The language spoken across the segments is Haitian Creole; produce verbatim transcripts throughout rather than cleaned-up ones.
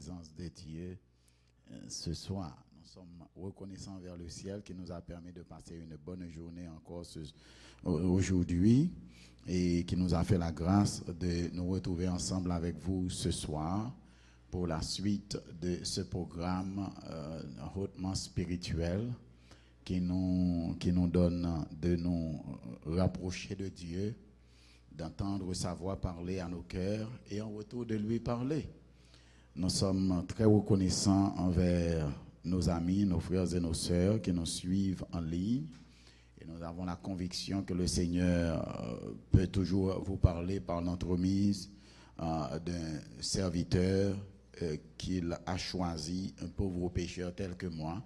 présence de Dieu euh, ce soir. Nous sommes reconnaissants envers le ciel qui nous a permis de passer une bonne journée encore ce, aujourd'hui et qui nous a fait la grâce de nous retrouver ensemble avec vous ce soir pour la suite de ce programme euh, hautement spirituel qui nous, qui nous donne de nous rapprocher de Dieu, d'entendre sa voix parler à nos cœurs et en retour de lui parler. Nous sommes très reconnaissants envers nos amis, nos frères et nos sœurs qui nous suivent en ligne. Et nous avons la conviction que le Seigneur euh, peut toujours vous parler par l'entremise euh, d'un serviteur euh, qu'il a choisi, un pauvre pécheur tel que moi.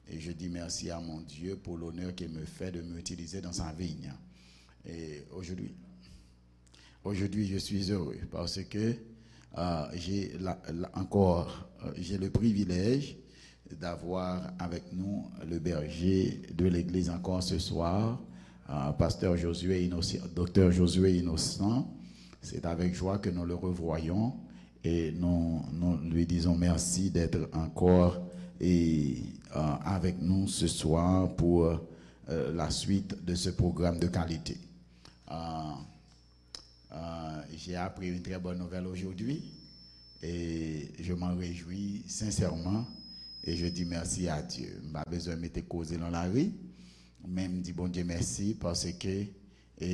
Et je dis merci à mon Dieu pour l'honneur qu'il me fait de m'utiliser dans sa vigne. Et aujourd'hui, aujourd'hui, je suis heureux parce que euh, j'ai la- la- encore euh, j'ai le privilège d'avoir avec nous le berger de l'église encore ce soir, euh, pasteur Josué Innocent, docteur Josué Innocent. C'est avec joie que nous le revoyons et nous, nous lui disons merci d'être encore et, euh, avec nous ce soir pour euh, la suite de ce programme de qualité. Euh, euh, j'ai appris une très bonne nouvelle aujourd'hui et je m'en réjouis sincèrement et je dis merci à Dieu. M pa bezwen mete koze nan lari, men m di Bondye mèsi paske e,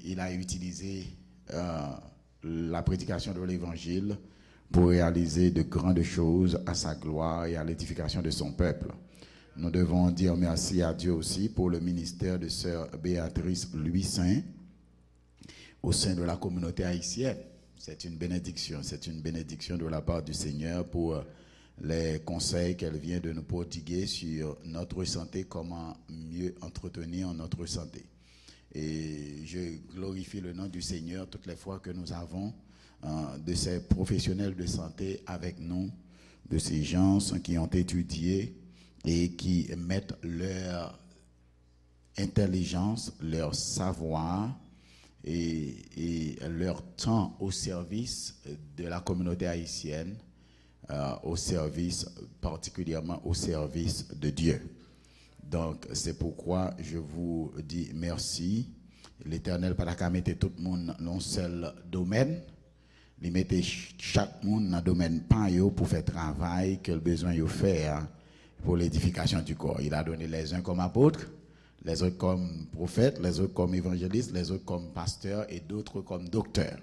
il a utilisé euh, la prédication de l'évangile pour réaliser de grandes choses à sa gloire et à l'édification de son peuple. Nous devons dire merci à Dieu aussi pour le ministère de sœur Béatrice Louis Saint au sein de la communauté haïtienne. C'est une bénédiction, c'est une bénédiction de la part du Seigneur pour les conseils qu'elle vient de nous prodiguer sur notre santé, comment mieux entretenir notre santé. Et je glorifie le nom du Seigneur toutes les fois que nous avons euh, de ces professionnels de santé avec nous, de ces gens qui ont étudié et qui mettent leur intelligence, leur savoir et, et leur temps au service de la communauté haïtienne, euh, au service, particulièrement au service de Dieu. Donc, c'est pourquoi je vous dis merci. L'Éternel pa ta ka mete tout moun nan yon sèl domèn. Li mete ch- chak moun nan domèn pa yo pou fè travay ke l bezwen yo fè a pour l'édification du corps. Il a donné les uns comme apôtres, les autres comme prophètes, les autres comme évangélistes, les autres comme pasteurs et d'autres comme docteurs.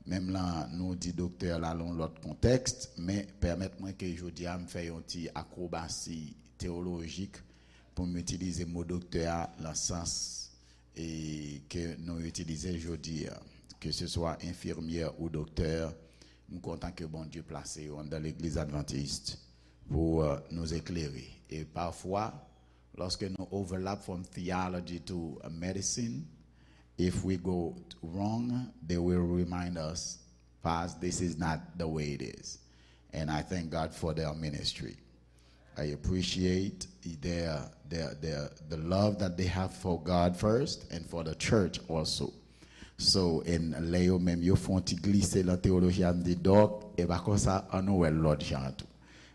Menm la, nou di doktè la nan yon lòt kontèks, men pèmèt mwen ke jodi a m fè yon ti akwobasi teyolojik pou m itilize mo doktè a nan sans e ke nou itilize jodi a. Ke se swa enfimyè ou doktè, m kontan ke Bondye plase yo anndan legliz advantist pou euh, nous éclairer. Et parfois, lorsque nous overlap from theology to medicine, if we go wrong, they will remind us, Paz, this is not the way it is. And I thank God for their ministry. I appreciate their, their, their, the love that they have for God first and for the church also. So, and lè yo menm yo fè yon ti glise nan teyoloji a, m di, Dòk, e pa konsa, an nou wè l lòt jan tou.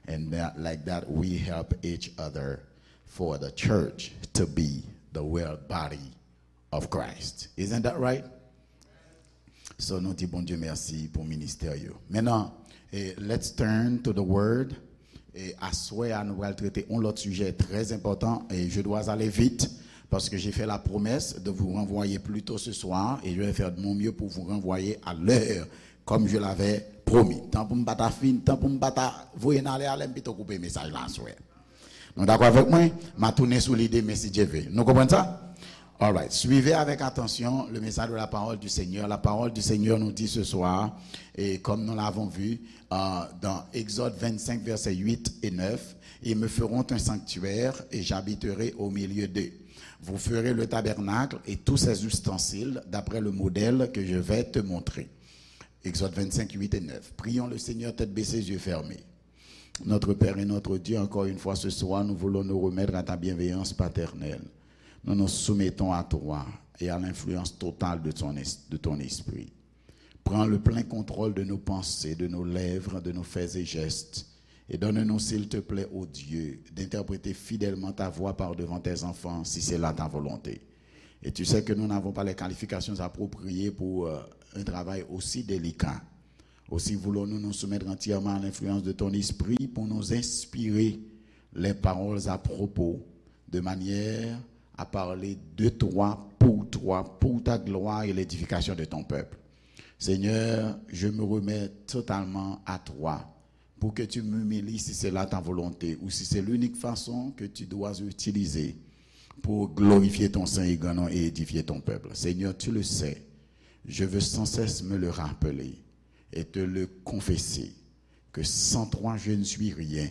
And that, like that, we help each other for the church to be the well body of Christ. Isn't that right? So, nou di Bondye mèsi pou ministè yo. Maintenant, eh, let's turn to the word. Et aswè a, nou pral trete yon lòt sijè trè enpòtan. Et je dois aller vite parce que j'ai fait la promesse de vous renvoyer plus tôt ce soir et je vais faire de mon mieux pour vous renvoyer à l'heure comme je l'avais promis. Tan pou m pa ta fin, tan pou m pa ta voye n ale, ale m pito koupe mesaj la aswè. Nou dakò avèk mwen? M a tounen sou lide, men si Dye vle. Nou konprann sa? Alright. Suivez avec attention le message de la parole du Seigneur. La parole du Seigneur nous dit ce soir, et comme nous l'avons vu euh, dans Exode vingt-cinq, versets huit et neuf, ils me feront un sanctuaire et j'habiterai au milieu d'eux. Vous ferez le tabernacle et tous ses ustensiles d'après le modèle que je vais te montrer. Exode vingt-cinq, huit et neuf. Prions le Seigneur, tête baissée, yeux fermés. Notre Père et notre Dieu, encore une fois ce soir, nous voulons nous remettre à ta bienveillance paternelle. Nous nous soumettons à toi et à l'influence totale de ton, es- de ton esprit. Prends le plein contrôle de nos pensées, de nos lèvres, de nos faits et gestes. Et donne-nous, s'il te plaît, ô Dieu, d'interpréter fidèlement ta voix par devant tes enfants, si c'est là ta volonté. Et tu sais que nous n'avons pas les qualifications appropriées pour euh, un travail aussi délicat. Aussi voulons-nous nous soumettre entièrement à l'influence de ton esprit pour nous inspirer les paroles à propos, de manière à parler de toi, pour toi, pour ta gloire et l'édification de ton peuple. Seigneur, je me remets totalement à toi pour que tu m'humilies si c'est là ta volonté ou si c'est l'unique façon que tu dois utiliser pour glorifier ton saint et grand nom et édifier ton peuple. Seigneur, tu le sais, je veux sans cesse me le rappeler et te le confesser que sans toi je ne suis rien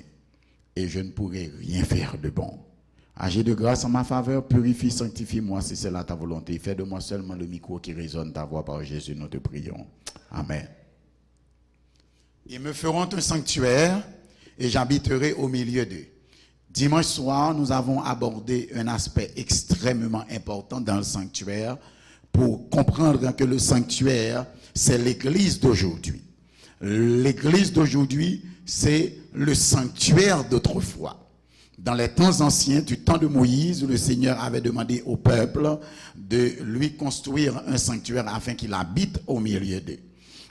et je ne pourrai rien faire de bon. Agis de grâce en ma faveur, purifie, sanctifie-moi si c'est là ta volonté. Fais de moi seulement le micro qui résonne ta voix par Jésus, nous te prions. Amen. Ils me feront un sanctuaire et j'habiterai au milieu d'eux. Dimanche soir, nous avons abordé un aspect extrêmement important dans le sanctuaire pour comprendre que le sanctuaire, c'est l'église d'aujourd'hui. L'église d'aujourd'hui, c'est le sanctuaire d'autrefois. Dans les temps anciens, du temps de Moïse, le Seigneur avait demandé au peuple de lui construire un sanctuaire afin qu'il habite au milieu d'eux.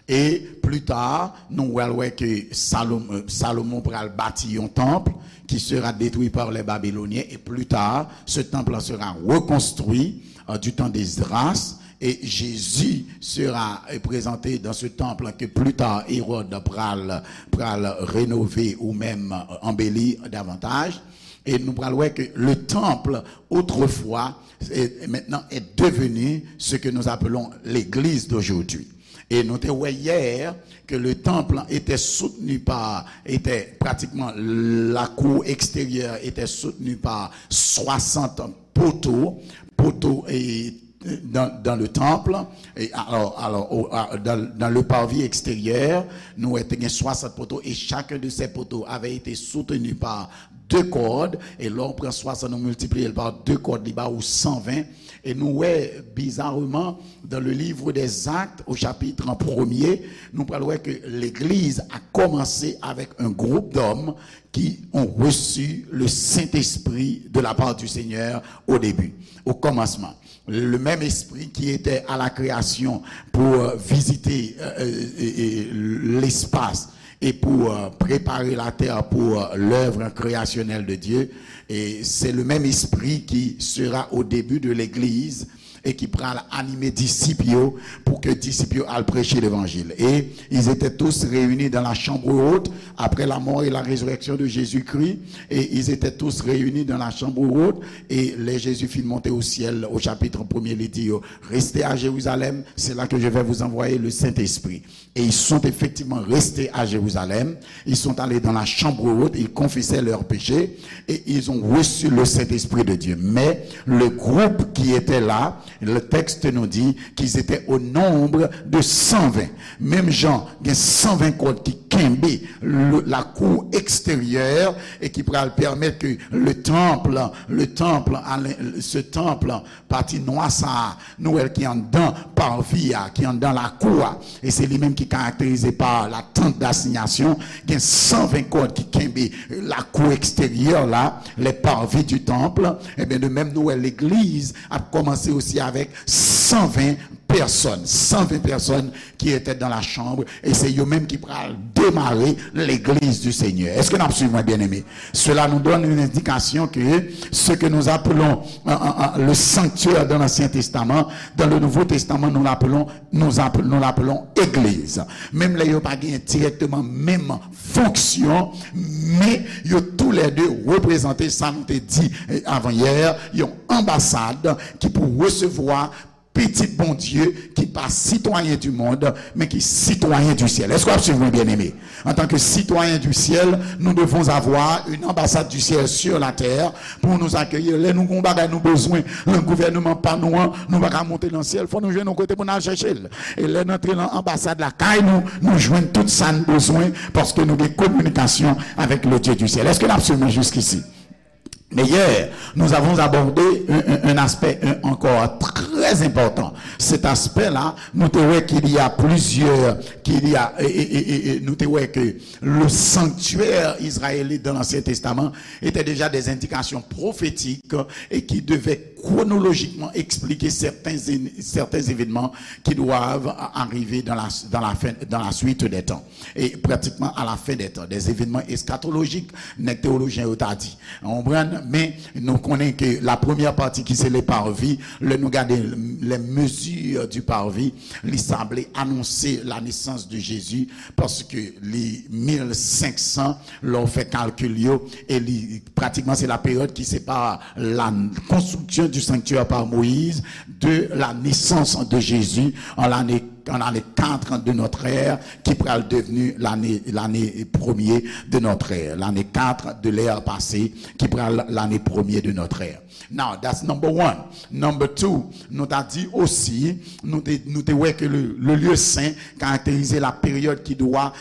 Et plus tard, nous allons voir que Salomon, Salomon pral bâtir un temple qui sera détruit par les Babyloniens. Et plus tard, ce temple sera reconstruit euh, du temps d'Esdras. Et Jésus sera euh, présenté dans ce temple que plus tard Hérode pral, pral rénover ou même euh, embellir davantage. Et nous allons voir que le temple, autrefois, est, maintenant est devenu ce que nous appelons l'église d'aujourd'hui. Et nous te wè hier que le temple était soutenu par, était pratiquement la cour extérieure était soutenue par soixante poteaux, poteaux et dans, dans le temple, et alors, alors au, à, dans, dans le parvis extérieur, nous étions soixante poteaux et chacun de ces poteaux avait été soutenu par deux cordes, et là on prend soixante, on multiplie par deux cordes, il bat au cent vingt, et nous, ouais, bizarrement, dans le livre des Actes, au chapitre premier, nous parlons que l'Église a commencé avec un groupe d'hommes qui ont reçu le Saint-Esprit de la part du Seigneur au début, au commencement. Le même esprit qui était à la création pour euh, visiter euh, euh, l'espace et pour euh, préparer la terre pour euh, l'œuvre créationnelle de Dieu. Et c'est le même esprit qui sera au début de l'Église et ki pral anime disip yo pour que disip yo al prêcher l'évangile. Et ils étaient tous réunis dans la chambre haute après la mort et la résurrection de Jésus-Christ. Et ils étaient tous réunis dans la chambre haute. Et les Jésus fit monter au ciel, au chapitre premier, il dit, restez à Jérusalem, c'est là que je vais vous envoyer le Saint-Esprit. Et ils sont effectivement restés à Jérusalem. Ils sont allés dans la chambre haute, ils confessaient leurs péchés et ils ont reçu le Saint-Esprit de Dieu. Mais le groupe qui était là, le texte nous dit qu'ils étaient au nombre de cent vingt. Menm jan, gen cent vingt kòd ki kenbe le, la cour extérieure et qui pral permettre que le temple, le temple, ce temple, pati nwa sa a, nou wè l ki anndan parvi a, ki anndan lakou a. E se li menm ki karakterize pa la tente d'assignation. Gen cent vingt kòd ki kenbe lakou eksteryè la, les parvis du temple. Ebyen, de même, nou wè legliz ap kòmanse osi avèk cent vingt pèsòn, cent vingt pèsòn qui étaient dans la chambre, et c'est eux-mêmes qui pral démarrer l'église du Seigneur. Est-ce que nous suivons, bien-aimés? Cela nous donne une indication que ce que nous appelons euh, euh, le sanctuaire dans l'Ancien Testament, dans le Nouveau Testament, nous l'appelons, nous appelons, nous l'appelons église. Menm lè yo pa gen direkteman menm fonksyon, men yo tou lè de reprezante sa nou te di avan yè, yon anbasad ki pou resevwa pitit Bondye ki pa sitwayen di mond, men ki sitwayen di syèl. Èske w ap suiv mwen, byeneme? Antanke sitwayen di syèl, nou devons avoir une ambassade du ciel sur la terre pour nous accueillir. Lè nou gen yon bagay nou bezwen nan gouvènman pa nou an, nou pa ka monte nan syèl. Fò nou jwenn yon kote pou n al chèche l. E lè n antre nan anbasad lakay nou, nou jwenn tout sa n bezwen paske nou gen kominikasyon avèk le Dieu du ciel. Èske n ap suiv mwen jiskisi? Mais hier, nous avons abordé un, un, un aspect un, encore très très important. Cet aspect-là, nous te wè qu'il y a plusieurs, qu'il y a, et, et, et, et, et nous te wè que le sanctuaire israélite dans l'Ancien Testament était déjà des indications prophétiques et qui devaient chronologiquement expliquer certains, certains événements qui doivent arriver dans la, dans la fin, dans la suite des temps. E pratikman a la fen dè tan, des événements eschatologiques, nèg teyolojyen yo ta di. Ou konprann? Men nou konnen ke la premyè pati ki se le parvis, lè nou gade les mesures du parvis, li sanble anonse la naissance de Jésus, paske li mil senk san, lè w fè kalkil yo, e li pratikman se la période qui sépare la construction du sanctuaire par Moïse de la naissance de Jésus en l'année en l'année quatre de notre ère, ki pral devni lane, lane premye de notre ère, lane kat de l'ère pase, ki pral lane premye de notre ère. Now, that's number one. Number two, nou ta di osi, nou te, nou te wè ke le, le lieu saint karakterize la période qui doit,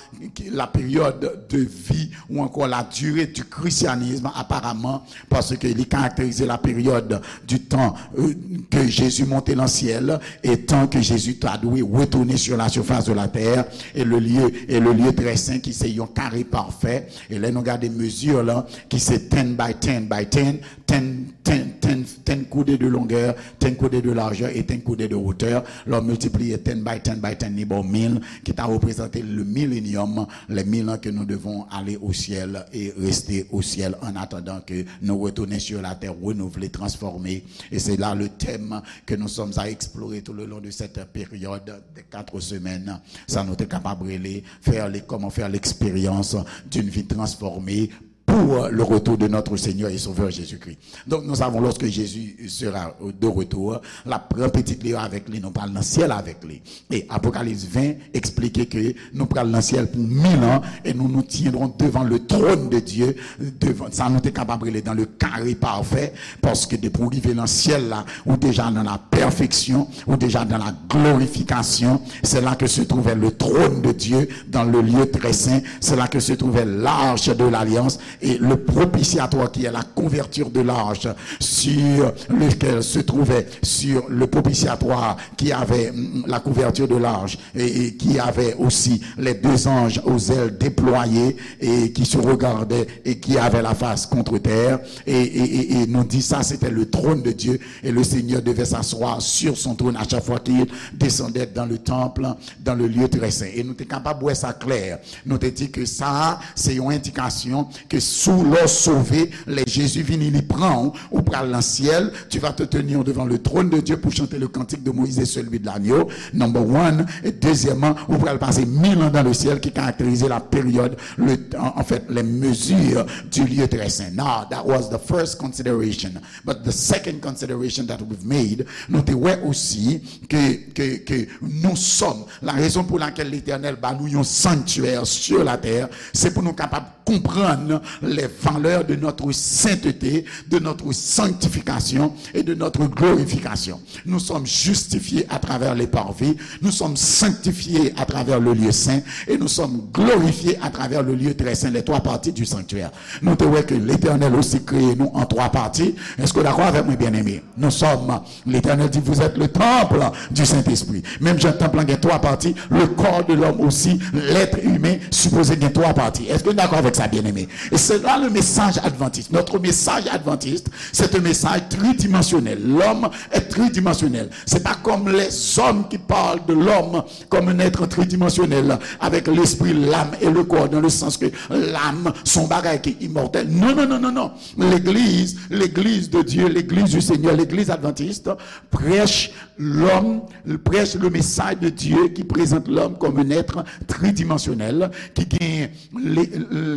la période de vie ou encore la durée du christianisme apparemment, paske li karakterize la période du temps euh, que Jésus monte dans le ciel et tant que Jésus ta dwe retourner sur la surface de la terre et le lieu et le lieu très saint qui c'est un carré parfait. E lè nou gade mezi la, ki se ten by ten by ten, ten, ten, ten, ten coudées de longueur, ten coudées de largeur et ten coudées de hauteur, lè w miltipliye ten by ten by ten, li ba w mil, ki ta reprezante le millennium, les mille ans que nous devons aller au ciel et rester au ciel en attendant que nous retourner sur la terre renouvelée, transformée. Et c'est là le thème que nous sommes à explorer tout le long de cette période de quatre semaines. Sa nou te kapab rele, faire les, comment faire l'expérience d'une vie transformée pour le retour de notre Seigneur et Sauveur Jésus-Christ. Donc nous savons, lorsque Jésus sera de retour, la pran pitit li avèk li, nou pral nan syèl avèk li. E Apokalips ven eksplike ke nou pral nan syèl pou mil an e nous nous tiendrons devant le trône de Dieu. Devan sa, nou te kapab rele dans le carré parfait, paske depi w rive nan syèl la, ou deja dans la perfection, ou deja dans la glorification. C'est là que se trouvait le trône de Dieu dans le lieu très saint. C'est là que se trouvait l'arche de l'alliance et le propitiatoire qui est la couverture de l'arche sur lequel se trouvait sur le propitiatoire qui avait mm, la couverture de l'arche et, et qui avait aussi les deux anges aux ailes déployées et qui se regardaient et qui avaient la face contre terre. Et, et, et, et nous dit ça, c'était le trône de Dieu et le Seigneur devait s'asseoir sur son trône à chaque fois qu'il descendait dans le temple, dans le lieu très saint. Et nous te capable voir ça clair. Nou te di ke sa a, se yon endikasyon ke si w lè w sove, lè Jezi vini, li pran w, ou pral nan syèl, tu vas te tenir devant le trône de Dieu pour chanter le cantique de Moïse et celui de l'agneau, number one. Et deuxièmement, ou pral pase mil an dans le ciel, ki karakterize la période, le, en, en fait, les mesures du lieu très saint. Now, that was the first consideration. But the second consideration that we've made, nou te wè osi ke, ke, ke nous sommes, la raison pour laquelle l'Éternel ba nou yon sanctuaire sur la terre, c'est pour nous capables comprendre les valeurs de notre sainteté, de notre sanctification et de notre glorification. Nous sommes justifiés à travers les parvis, nous sommes sanctifiés à travers le lieu saint et nous sommes glorifiés à travers le lieu très saint, les trois parties du sanctuaire. Nou te wè ke Letènèl osi kreye nou an twa pati. Èske w dakò avèk mwen, byeneme? Nous sommes, l'Éternel dit, vous êtes le temple du Saint-Esprit. Menm jan tanp lan gen twa pati, le corps de l'homme aussi, l'être humain, sipoze gen twa pati. Èske nou dakò avèk sa, byeneme? Et c'est là le message adventiste. Notre message adventiste, c'est un message tridimensionnel. L'homme est tridimensionnel. C'est pas comme les hommes qui parlent de l'homme comme un être tridimensionnel, avec l'esprit, l'âme et le corps, dans le sens que l'âme, son bagay ki imòtèl. Non, non, non, non, non. L'église, l'église de Dieu, l'église du Seigneur, l'église adventiste prêche l'homme, prêche le message de Dieu qui présente l'homme comme un être tridimensionnel, ki gen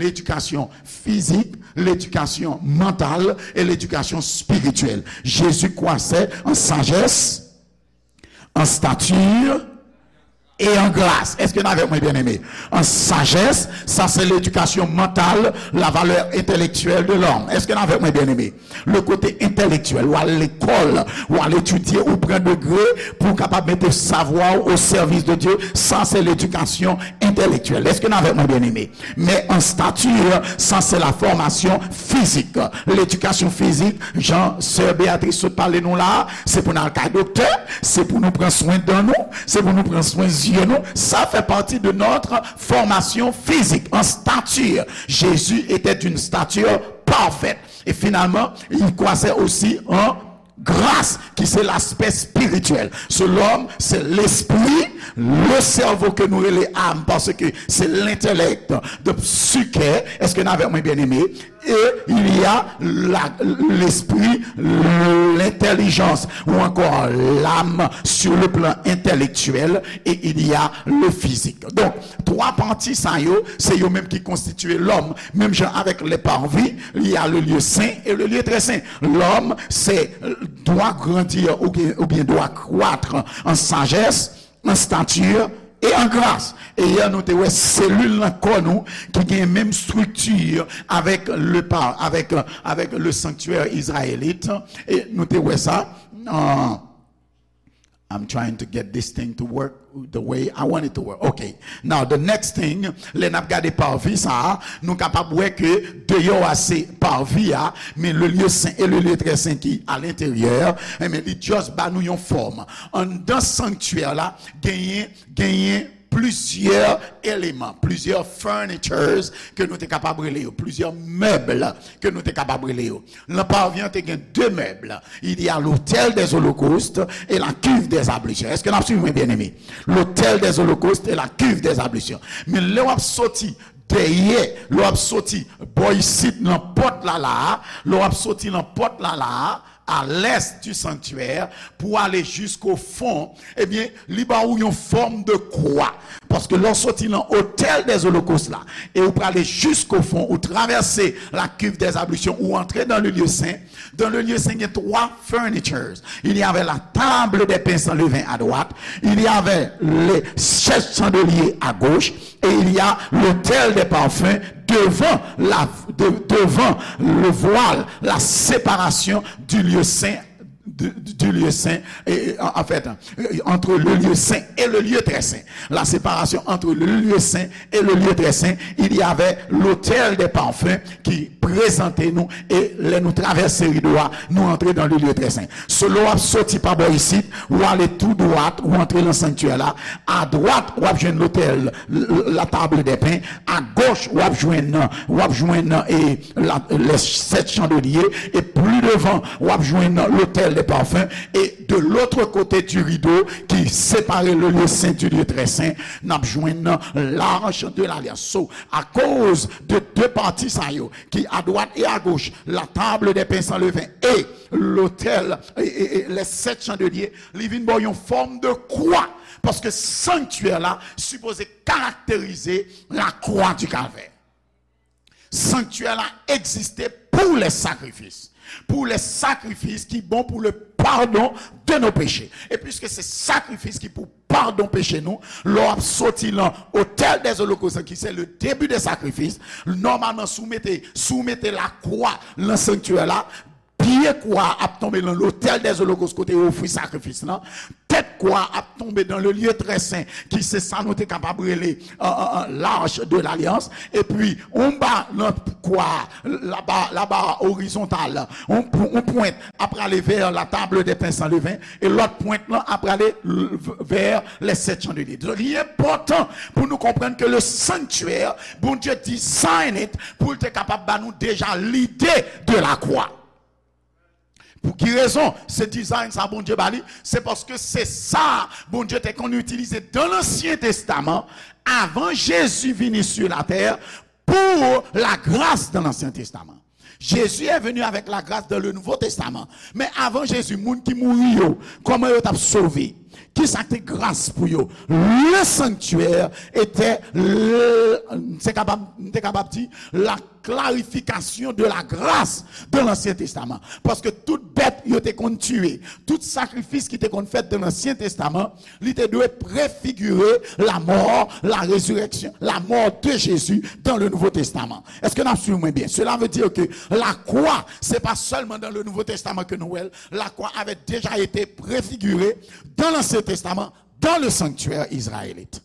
l'éducation physique, l'éducation mentale et l'éducation spirituelle. Jésus croissait en sagesse, en stature, et en grâce. Est-ce que nou avèk mwen, bien-aimé? En sagesse, ça c'est l'éducation mentale, la valeur intellectuelle de l'homme. Est-ce que nou avèk mwen, bien-aimé? Le côté intellectuel, ou al lekòl, ou al etidye, ou pran degre pou w kapab mete savwa w au service de Dieu, sa se ledikasyon entèlektyèl. Est-ce que nou avèk mwen, bien-aimé? Men en stature, sa se la formation physique. Ledikasyon fizik, jan sè Beatrice sot pale nou la, se pou n al kay doktè, se pou nou pran swen dan nou, se pou nou pran swen zye nou. Ça fait partie de notre formation physique. En stature, Jésus était d'une stature parfaite. Et finalement, il croissait aussi en grâce, ki se l'aspect spirituel. So, lòm, se lespri, le cerveau ke nou rele âme, paske se l'intellect, the psyche. Est-ce que nou avèk mwen, bien-aimé? Et il y a la, l'esprit, l'intelligence, ou encore l'âme sur le plan intellectuel, et il y a le physique. Donc, twa pati sa yo, se yo menm ki konstitye lòm. Menm jan avèk le parvis, il y a le lieu saint et le lieu très saint. Lòm, se dwa grandi oubyen, oubyen dwa kwat an sajès, an stati e an gras. E yè nou te wè selil nan kò nou ki gen menm estrikti avèk le pa, avèk, avèk le sanctuaire israélite. E nou te wè sa nan I'm trying to get this thing to work the way I want it to work. Okay. Now, the next thing, lè n ap gade parvis sa a, nou kapab wè ke deyò a se parvis a, men le lieu saint et le lieu très saint ki alenteryè, enben, li just ba nou yon fòm. Anndan sanktyè la, genyen, genyen plizyè eleman, plizyè furnitures ke nou te kapab rele yo, plizyè mèb ke nou te kapab rele yo. Nan parvis an te gen de mèb. Il y a l'autel des holocaustes et la cuve des ablutions. Èske n ap swiv mwen, bien-aimé? L'autel des holocaustes et la cuve des ablutions. Men lè w ap soti dèyè, lè w ap soti bò isit nan pòt la la a, lè w ap soti nan pòt la la a, à l'est du sanctuaire, pou ale jusqu'au fond, ebyen, li ba ou yon fòm de kwa. Paske lè w soti nan autel des holocaustes la, e ou prale jusqu'au fond, ou travèse la cuve des ablutions, ou antre dans le lieu saint. Dans le lieu saint, il y a trois furnitures. Il y avait la table des pains sans levain à droite, il y avait les sept chandeliers à gauche, et il y a l'autel des parfums devant la, de- devant le voile, la séparation du lieu saint, du, du lieu saint, et, en fait, entre le lieu saint et le lieu très saint. La séparation entre le lieu saint et le lieu très saint, il y avait l'autel des parfums ki prezante nou, e lè nou travèse rido a, nou antre dans le lieu très saint. So, lè w ap soti pa bò isit, ou ale tou dwat, ou antre nan sanktyè la, à droite, w ap jwenn l'autel, la table des pains, à gauche, w ap jwenn, w ap jwenn, e, la, les sept chandeliers, et plus devant, w ap jwenn l'autel des parfums, et de l'autre côté du rideau qui sépare le lieu saint du lieu très saint, n ap jwenn l'arche de l'alliance. So, akoz de de pati sa yo, ki à droite et à gauche, la table des pains sans levain et l'autel, e, e, e, les sept chandeliers, li vin ba w yon fòm de kwa. Paske sanktyè la sipoze karakterize la croix du calvaire. Sanktyè la egziste pour les sacrifices. Pour les sacrifices ki bon pour le pardon de nos péchés. E piske se sakrifis ki pou padon peche nou, lè w ap soti nan autel des holocaustes, ki se le début des sacrifices, nòmalman, si w mete, si w mete lakwa nan sanktyè la, pye kwa ap tonbe nan l'autel des holocaustes kote yo ofri sakrifis lan. Tèt kwa ap tonbe dans le lieu très saint, ki se sa nou te kapab rele, euh, euh, euh, l'arche de l'alliance. Epi, anba nan kwa, la barre, la barre horizontale, yon pw-, yon pwent ap prale vers la table des pains sans levain, e lòt pwent lan ap prale l-, vers les sept chandeliers. Donk, li enpòtan pou nou konprann ke le sanctuaire, Bondye design it pou l te kapab ba nou deja lide de la croix. Pou ki rezon se design sa Bondye ba li? Se paske se sa Bondye te konn itilize dans l'Ancien Testament, avan Jezi vini sur la terre, pour la grâce dans l'Ancien Testament. Jésus est venu avec la grâce dans le Nouveau Testament. Men avan Jezi, moun ki mouri yo, kòman yo t ap sove? Kisa ki te gras pou yo? Le sanctuaire était, le, m te kapab, m te kapab di, la clarification de la grâce dans l'Ancien Testament. Paske tout bèt yo te konn tiye, tout sakrifis ki te konn fèt dans l'Ancien Testament, li te dwe prefigire la mort, la résurrection, la mort de Jésus dans le Nouveau Testament. Est-ce que n ap suiv mwen byen? Cela veut dire que la croix, c'est pas seulement dans le Nouveau Testament que nou wè l. La croix avait déjà été préfigurée dans l'Ancien Testament, dans le sanctuaire israélite.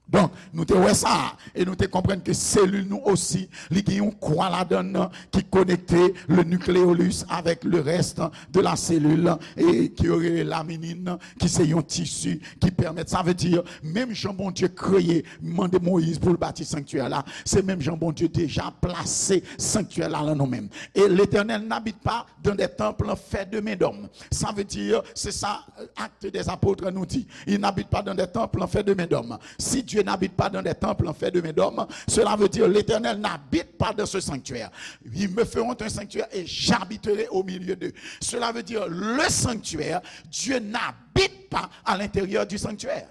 Donk, nou te wè sa, e nou te konprann ke selil nou osi, li gen yon kwa ladan l ki konekte le nucleolus avec le reste de la cellule, e ke yo rele laminin, ki se yon tisi ki pèmèt. Sa vle di, menm jan Bondye kreye, mande Moyiz pou l bati sanktyè la, se menm jan Bondye deja plase sanktyè la nan nou menm. Et l'Éternel n'habite pas dans des temples faits de main d'homme. Ça veut dire, c'est ça, Actes des Apôtres nous dit, il n'habite pas dans des temples faits de main d'homme. Si Dieu n'habite pas dans des temples faits de main d'homme, cela veut dire l'Éternel n'habite pas dans ce sanctuaire. Ils me feront un sanctuaire et j'habiterai au milieu d'eux. Cela veut dire le sanctuaire, Dieu n'habite pas à l'intérieur du sanctuaire.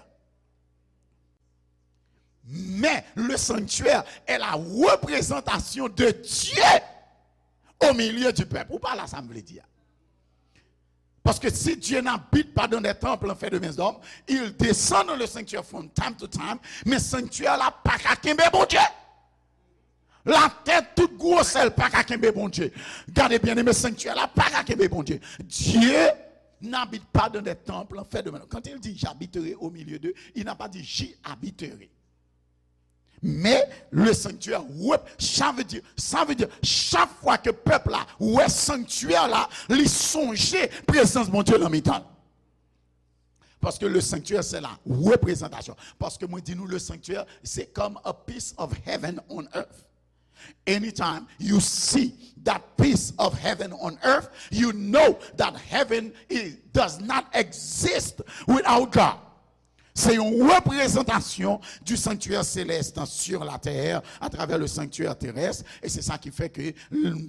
Mais le sanctuaire est la représentation de Dieu au milieu du peuple. Ou pa la sa m vle di a. Paske si Dieu n'habite pas dans des temples faits de main d'homme, il descend dans le sanctuaire from time to time, men sanktyè la pa ka kenbe Bondye. Latè tout gwosè l pa ka kenbe Bondye. Gade byeneme, sanktyè la pa ka kenbe Bondye. Dieu n'habite pas dans des temples faits de main. Quand il dit j'habiterai au milieu d'eux, il n'a pas dit j'y habiterai. Mais le sanctuaire, sa vle di, sa vle di, chak fwa ke pèp la wè sanktyè la, li sonje prezans Bondye nan mitan l. Paske le sanctuaire, c'est la représentation. Paske mwen di nou, le sanctuaire, c'est comme a piece of heaven on earth. Anytime you see that piece of heaven on earth, you know that heaven is, does not exist without God. Se yon reprezantasyon du sanctuaire céleste sur la terre à travers le sanctuaire terrestre. E se sa ki fè ke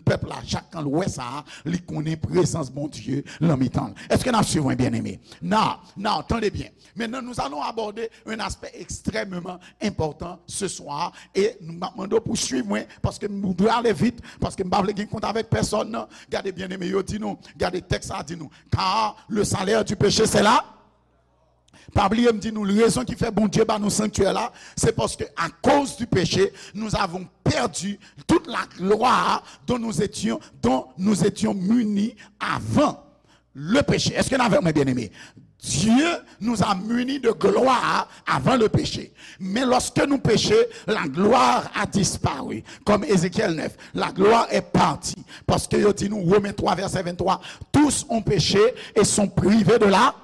pèp la, chak kan l wè sa, li konnen prezans Bondye nan mitan l. Èske n ap suiv mwen, byeneme? Now, now, tande byen. Maintenant, nous allons aborder un aspect extrêmement important ce soir. E m ap mande w pou swiv mwen, paske m dwe ale vit, paske m pa vle gen kont avèk pèsonn. Gade, byeneme, yo di nou, gade, tèks la di nou, car le salaire du péché, c'est la. Pa bliye, m di nou, rezon ki fè Bondye ba nou sanktyè la, se paske, à cause du péché, nous avons perdu toute la gloire dont nous étions, dont nous étions munis avant le péché. Est-ce que n avèk mwen, byeneme? Dieu nous a munis de gloire avant le péché. Mais lorsque nous péchons, la gloire a disparu. Comme Ézéchiel neuf, la gloire est partie. Paske yo di nou, Romains trois, verset vingt-trois, tous ont péché et sont privés de la,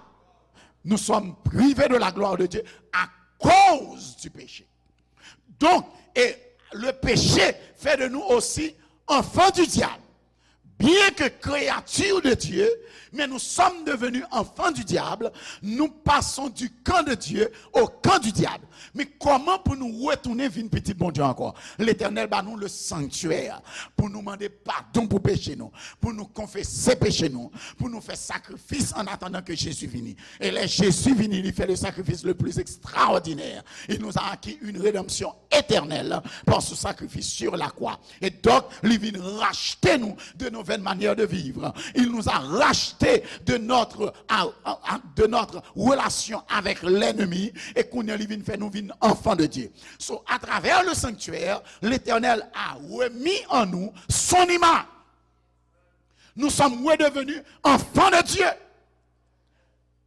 nous sommes privés de la gloire de Dieu à cause du péché. Donc, et le péché fait de nous aussi enfants du diable. Bien que créatures de Dieu, mais nous sommes devenus enfants du diable, nous passons du camp de Dieu au camp du diable. Men kòman pou nou retounen vin pitit Bondye ankò? Letènèl ba nou le sanctuaire pou nou mande padon pou peche nou, pou nou konfese peche nou, pou nou fè sakrifis en attendant que Jésus vini. Et là, Jésus vini, il fait le sacrifice le plus extraordinaire. Il nous a acquis une rédemption éternelle par ce sacrifice sur la croix. Et donc, li vin rachte nou de nos vaines manières de vivre. Il nous a racheté de notre, à, à, à, de notre relation avec l'ennemi. E kounye a, li vin fè nou vin enfants de Dieu. So, à travers le sanctuaire, l'Éternel a remis en nous son image. Nous sommes redevenus enfants de Dieu.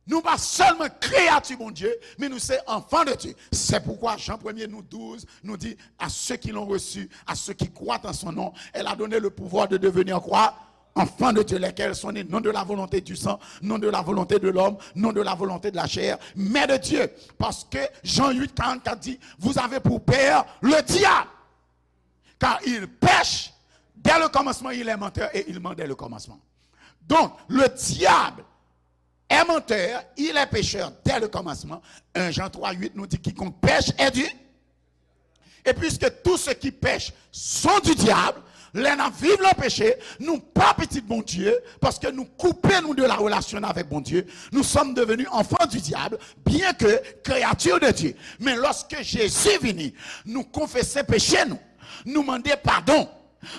Nou pa sèlman kreyati Bondye, men nou se enfants de Dieu. C'est pourquoi Jean premier nous douze nous dit, à ceux qui l'ont reçu, à ceux qui croient en son nom, elle a donné le pouvoir de devenir quoi? Enfants de Dieu, lesquels sont nés non de la volonté du sang, non de la volonté de l'homme, non de la volonté de la chair, mais de Dieu. Parce que Jean huit quarante-quatre dit, vous avez pour père le diable. Car il pèche dès le commencement, il est menteur et il ment dès le commencement. Donc, le diable est menteur, il est pécheur dès le commencement. Un Jean trois huit nous dit, quiconque pèche est du. Et puisque tous ceux qui pêchent sont du diable, Lè n ap viv nan peche, nou pa pitit Bondye, paske nou koupe nou de la relation avec Bondye. Nous sommes devenus enfants du diable, bien que créatures de Dieu. Men lòske Jezi vini, nou konfese peche nou, nou mande padon,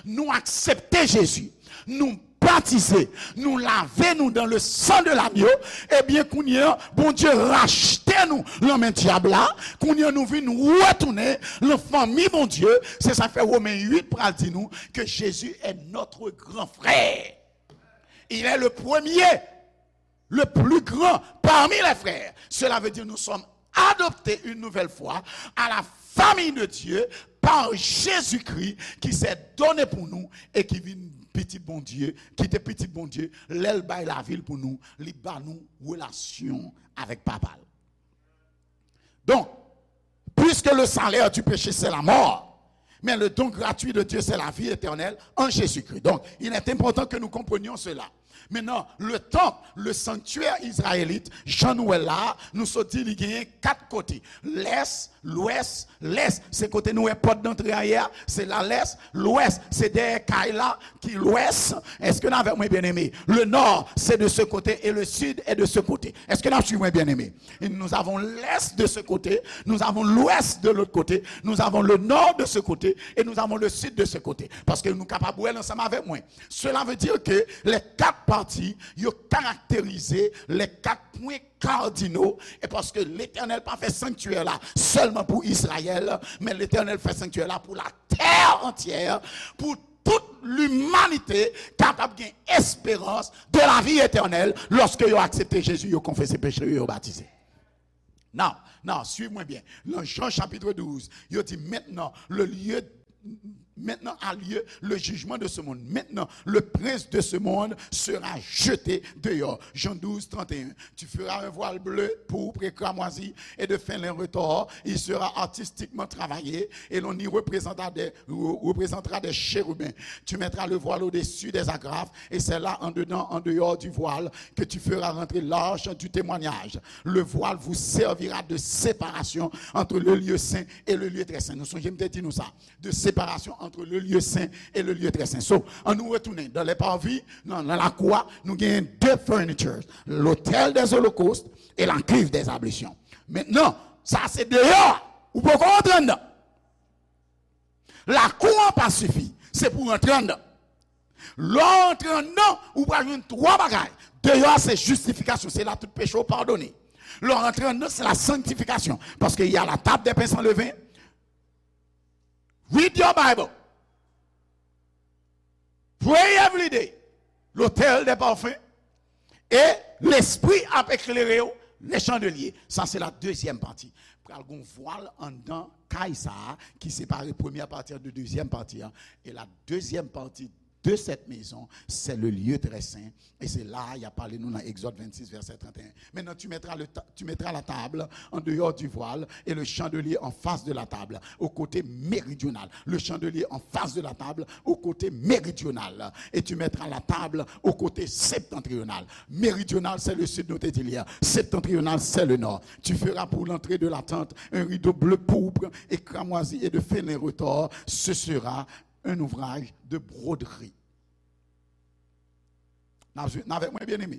nou aksepte Jezi, nou batize, nou lave nou dans le sang de l'agneau, ebyen, kounye a, Bondye rachte nou nan men dyab la, kounye a, nou vin retounen nan fanmi Bondye. Se sa k fè Women uit pral di nou que Jésus est notre grand frère. Il est le premier, le plus grand parmi les frères. Cela veut dire nous sommes adoptés une nouvelle fois à la famille de Dieu par Jésus-Christ qui s'est donné pour nous et qui vin pitit Bondye, ki te pitit Bondye, lè l bay lavi l pou nou, li ba nou relasyon avèk Papa l. Donc, puisque le salaire du péché, c'est la mort, mais le don gratuit de Dieu, c'est la vie éternelle en Jésus-Christ. Donc, il est important que nous comprenions cela. Maintenant, le temple, le sanctuaire israélite, jan nou wè la, nou sot di li genyen kat kote. Lès, lwès, lès, se kote nou wè pòt dantre a ye a, se la lès, lwès, se dèyè kay la ki lwès. Èske n avèk mwen, byeneme? Le nord, c'est de ce côté et le sud est de ce côté. Èske n ap swiv mwen, byeneme? Et nous avons l'est de ce côté, nous avons l'ouest de l'autre côté, nous avons le nord de ce côté et nous avons le sud de ce côté. Paske nou kapab wè l ansanm avèk mwen. Cela veut dire que les quatre parties, yo karakterize les quatre points cardinaux, e paske Letènèl pa fè sanktyè la sèlman pou Izrayèl, men Letènèl fè sanktyè la pou latè antyè, pou tout limanite kapab gen esperans de la vie éternelle lòske yo aksepte Jezi, yo konfese peche yo, yo batize. Now, now, swiv mwen byen. Nan Jan chapit douz, yo di, maintenant, le lieu, maintenant a lieu le jugement de ce monde. Maintenant, le prince de ce monde sera jeté dehors. Jan douz, trant e en. Tu feras un voile bleu, pourpre et cramoisi, et de fin lin retors. Il sera artistiquement travaillé, et l'on y représentera des, re-, représentera des chérubins. Tu mettras le voile au-dessus des agrafes, et c'est là, en dedans, en dehors du voile, que tu feras rentrer l'arche du témoignage. Le voile vous servira de séparation entre le lieu saint et le lieu très saint. Nou sonje m te di nou sa. De séparation entre le lieu saint et le lieu très saint. So, ann nou retounen dans les parvis, nan, nan lakou a, nou genyen de furnitures, l'autel des holocaustes et la cuve des ablutions. Maintenant, sa se deyò a, ou poko rantre anndan. Lakou an pa sifi, se pou w rantre anndan. Lè w rantre anndan, ou pral jwenn twa bagay. Deyò a se jistifikasyon, se la tout peche w padone. Lè w rantre anndan, se la sanctification, paske il y a la table des pains sans levain. Read your Bible. Pray every day. L'autel des parfums. E Lespri ap eklere w, le chandelier. Sa se la dezyèm pati. Pral gon vwal anndan kay sa a ki separe premyè pati an de dezyèm pati an. E la dezyèm pati de cette maison, c'est le lieu très saint. E se la a y ap pale nou nan Egzòd vennsis, vèsè trant e en. Maintenant, tu mettras le ta-, tu mettras la table en dehors du voile et le chandelier en face de la table, au côté méridional. Le chandelier en face de la table, au côté méridional. Et tu mettras la table au côté septentrional. Méridional, c'est le sud, nou te di l yè. Septentrional, c'est le nord. Tu feras pour l'entrée de la tente un rideau bleu pourpre et cramoisi et de fin lin retors. Ce sera un ouvrage de broderie. N ap swiv, n avèk mwen, byeneme?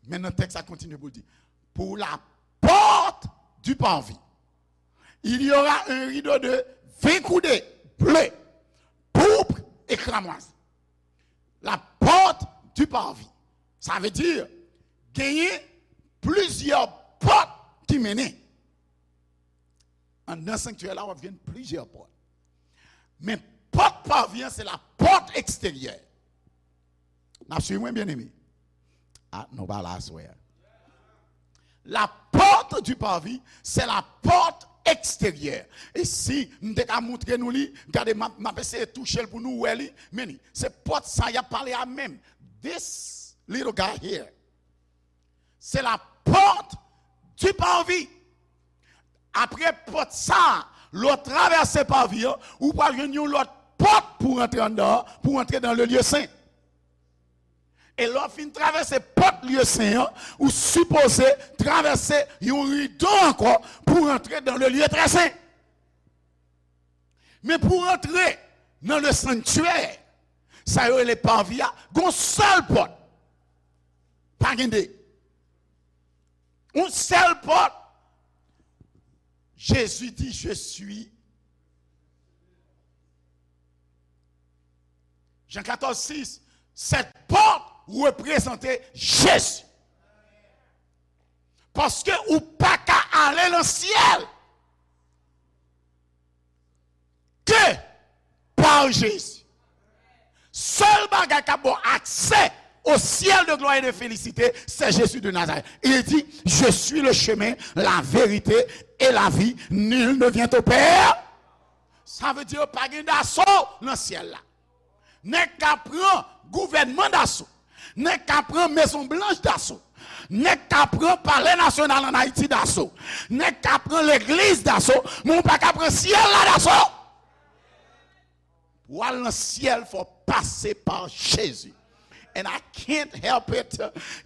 Men nan tèks la kontinye pou l di, pour la porte du parvis, il y aura un rideau de vingt coudées bleu, pourpre et cramoisi. La porte du parvis. Sa vle di, genyen plizyè pòt ki mennen. Anndan sanktyè la, w ap jwenn plizyè pòt. Men pòt parvis an, se la pòt eksteryè. N ap swiv mwen, byeneme? A, nou pa la aswè a. La porte du parvis, c'est la porte extérieure. E si m te ka montre nou li, gade, m ap, m ap eseye touche l pou nou wè li. Men li, se pòt sa y ap pale a menm. This little guy here. Se la porte du parvis. Apre pòt sa, lè w travèse parvis an, ou pral jwenn yon lòt pòt pou rantre anndan, pou rantre dans le lieu saint. E lè w fin travèse pòt lieu saint an, ou sipoze travèse yon rido ankò pou rantre dans le lieu très saint. Men pou rantre nan le sanctuaire, sa yo rele parvis a, gon sèl pòt. Pa gen de. Yon sèl pòt. Jezi di, je suis. Jan katòz sis, cette porte représente Jésus. Paske ou pa ka ale nan syèl ke pa Jezi. Sèl bagay k ap ba w aksè au ciel de gloire et de félicité, c'est Jésus de Nazareth. Il dit, je suis le chemin, la vérité et la vie. Nul ne vient au Père. Sa vle di pa gen daso nan syèl la. Nèg ka pran gouvènman daso. Nèg ka pran Mezon Blanch daso. Nèg ka pran Palè Nasyonal ann Ayiti daso. Nèg ka pran legliz daso. Men ou pa ka pran syèl la daso. Pou al nan syèl, fò pase pa Jezi. And I can't help it.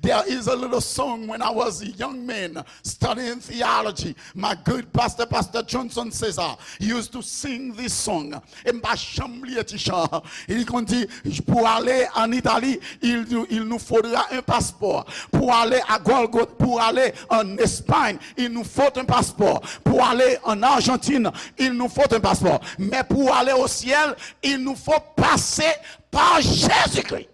There is a little song when I was a young man studying theology. My good pastor, Pastor Johnson César, used to sing this song. E m pa janm bliye ti chan. Li konn di, pou ale an Itali, il, il nous faudra un passeport. Pour aller à Golgotha, pour aller en Espagne, il nous faut un passeport. Pour aller en Argentine, il nous faut un passeport. Mais pour aller au ciel, il nous faut passer par Jésus-Christ.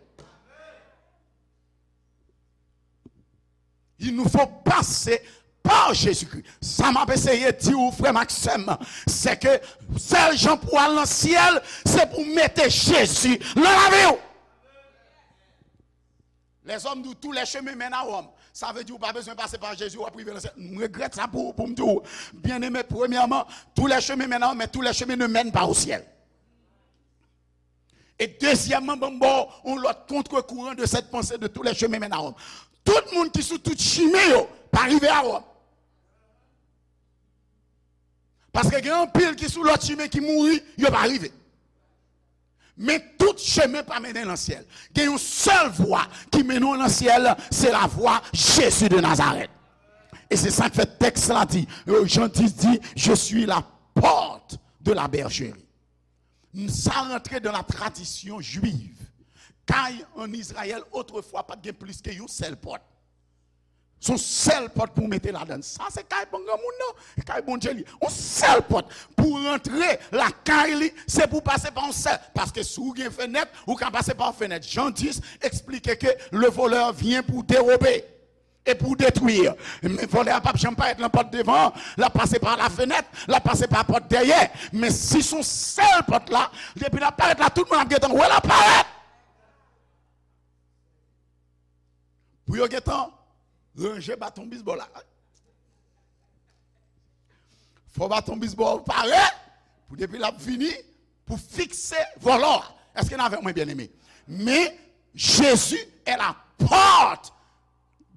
Il nous faut passer par Jésus-Christ. Sa m ap eseye di w, frè m ak sè m, se ke sèl jan pou al nan syèl, se pou mete Jezi nan lavi w. Lèzòm di w, tous les chemins mènent à Rome. Sa vle di w pa bezwen pase pa Jezi, w ap rive nan syèl. M regrèt sa pou, pou m di w. Byeneme, premyèman, tous les chemins mènent à Rome, mais tous les chemins ne mènent pas au ciel. E dezyèmman, ban m ba w yon lòt contre-courant de cette pensée de tous les chemins mènent à Rome. Tout moun ki sou tout chimen yo pa rive a Wòm. Paske gen anpil ki sou lòt chimen ki mouri, yo pa rive. Men tout chemen pa mennen nan syèl. Gen yon sèl vwa ki mennen w nan syèl, se la vwa Jezi de Nazarèt. E se sa k fè tèks la di, Jan dis di, je suis la porte de la bergerie. Sa rantre dans la tradition juive. Kay an Izrayèl, otrefwa, pa t gen plis ke yon sèl pòt. Se yon sèl pòt pou w mete ladann. Sa se kay bon granmoun nan, kay Bondye li. Yon sèl pòt. Pou w rantre lakay li, se pou w pase pa yon sèl. Paske si w gen fenèt, ou ka pase pa yon fenèt. Jan dis eksplike ke le voleur vient pour dérober et pour détruire. Men vòlè a p ap janm parèt nan pòt devan an. L ap pase pa lafenèt, l ap pase pa pòt dèyè. Men si se yon sèl pòt la, depi l ap parèt la, tout moun ap gentan wè l ap parèt. Pou yo gentan ranje baton bisbòl la. Fò baton bisbòl pare pou depi l ap vini pou fikse vòlò a. Èske n avè mwen, byeneme? Men, Jésus est la porte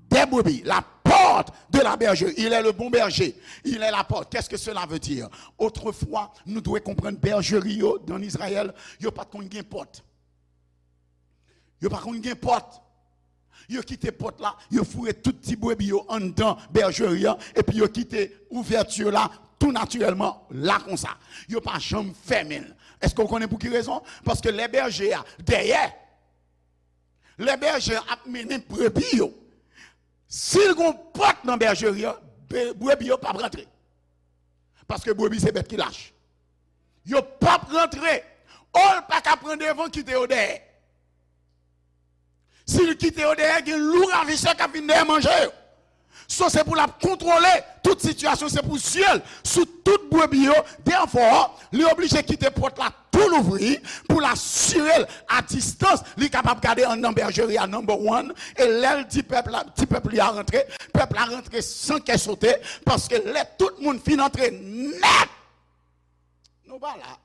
des brebis, la porte de la bergerie. Il est le bon berger. Il est la porte. Qu'est-ce que cela veut dire? Otrefwa, nou dwe konprann bèjeri yo ann Izrayèl, yo pa t konn gen pòt. Yo pa konn gen pòt. Yo kite pòt la, yo foure tout ti brebi yo anndan bèjeri an, epi yo kite ouvèti la tou natirèlman la konsa. Yo pa janm fèmen l. Èske w konnen pou ki rezon? Paske lè bèje a dèyè, lè bèje a ap mennen brebi yo, si l gon pòt nan bèjeri an, be-, brebi yo p ap rantre. Paske brebi se bèt ki lach. Yo p ap rantre. O, l pa ka pran devan, kite yo dèyè. Si l kite yo dèyè, gen lou ravisè k ap vin dèyè manje yo. So, se pou l ap kontwole tout sitiyasyon, se pou zye l sou tout brebi yo. Therefore, li oblije kite pòt la tou louvri pou l asire l a distans, li kapab gade anndan bèjeri a, number one. E lè l di pèp la, di pèp li a rantre, pèp la rantre san kè sote, paske lè tout moun fin antre nèt, nou pa la.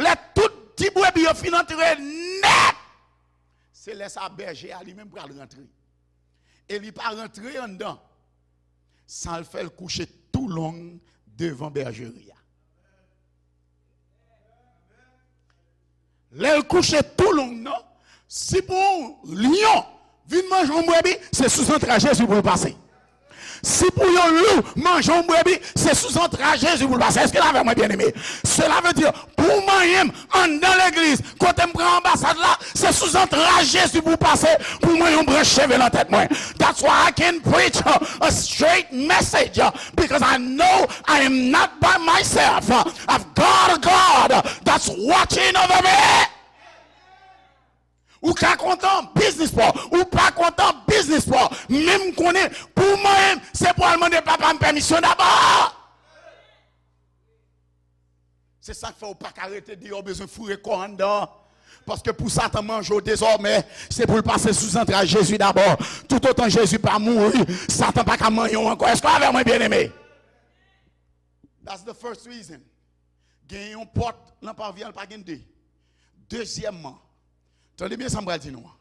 Lè tout ti brebi yo fin antre nèt, se lè sa bèje a li menm pral rantre. E li pa rantre anndan san l fè l kouche tou long devan bèjeri a. Lè l kouche tou long nan, si pou yon lyon vin manje yon brebi, se sou zantray Jezi pou l pase. Si pou yon lou manje yon brebi, se sou zantray Jezi pou l pase. Èske n avè mwen, byeneme? Cela veut dire, pou manyen m anndan legliz, kote m pran anbasad la, se sou zantray Jezi pou pase, pou mwen yon branch cheve nan tèt mwen. That's why I can preach a, a straight message, uh, because I know I am not by myself. Uh, I've got a God, uh, that's watching over me. Ou ka kontan, biznis pa w. Ou pa kontan, biznis pa w. Men m konnen, pou mwen, se pou al mande papa m pèmisyon dabò. Se sa k fè w pa ka rete deyò, w bezwen foure kò w anndan. Paske pou Satan manje w dezòmè, se pou l pase sou zantray Jezi dabò. Toutotan Jezi pa mouri, Satan pa ka manyen w ankò. Èske w avè mwen, byeneme? That's the first reason. Gen yon pòt nan pavi a, l pa gen de. Dezyèmman, tande byen sa m pral di nou an.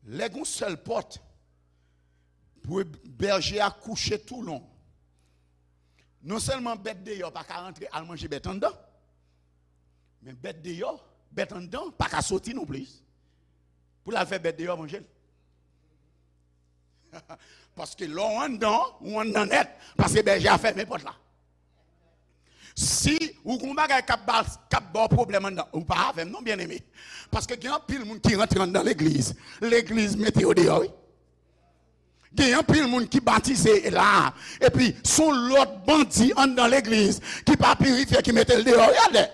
Lè gen yon sèl pòt, pou bèje a kouche toulong. Non sèlman bèt deyò pa ka rantre al manje bèt anndan, men bèt deyò, bèt anndan pa ka soti nonplis pou l al fè bèt deyò manje l. Paske lè w anndan, ou anndan nèt, paske bèje a fèmen pòt la. Si ou gon bagay k ap ba, k ap ba w pwoblèm anndan, ou pa avè m non, byeneme. Paske gen anpil moun ki rantre anndan legliz, legliz mete yo deyò, wi. Gen anpil moun ki batize la, epi se yon lòt bandi anndan legliz ki pa pirifye ki mete l deyò, wi, atè.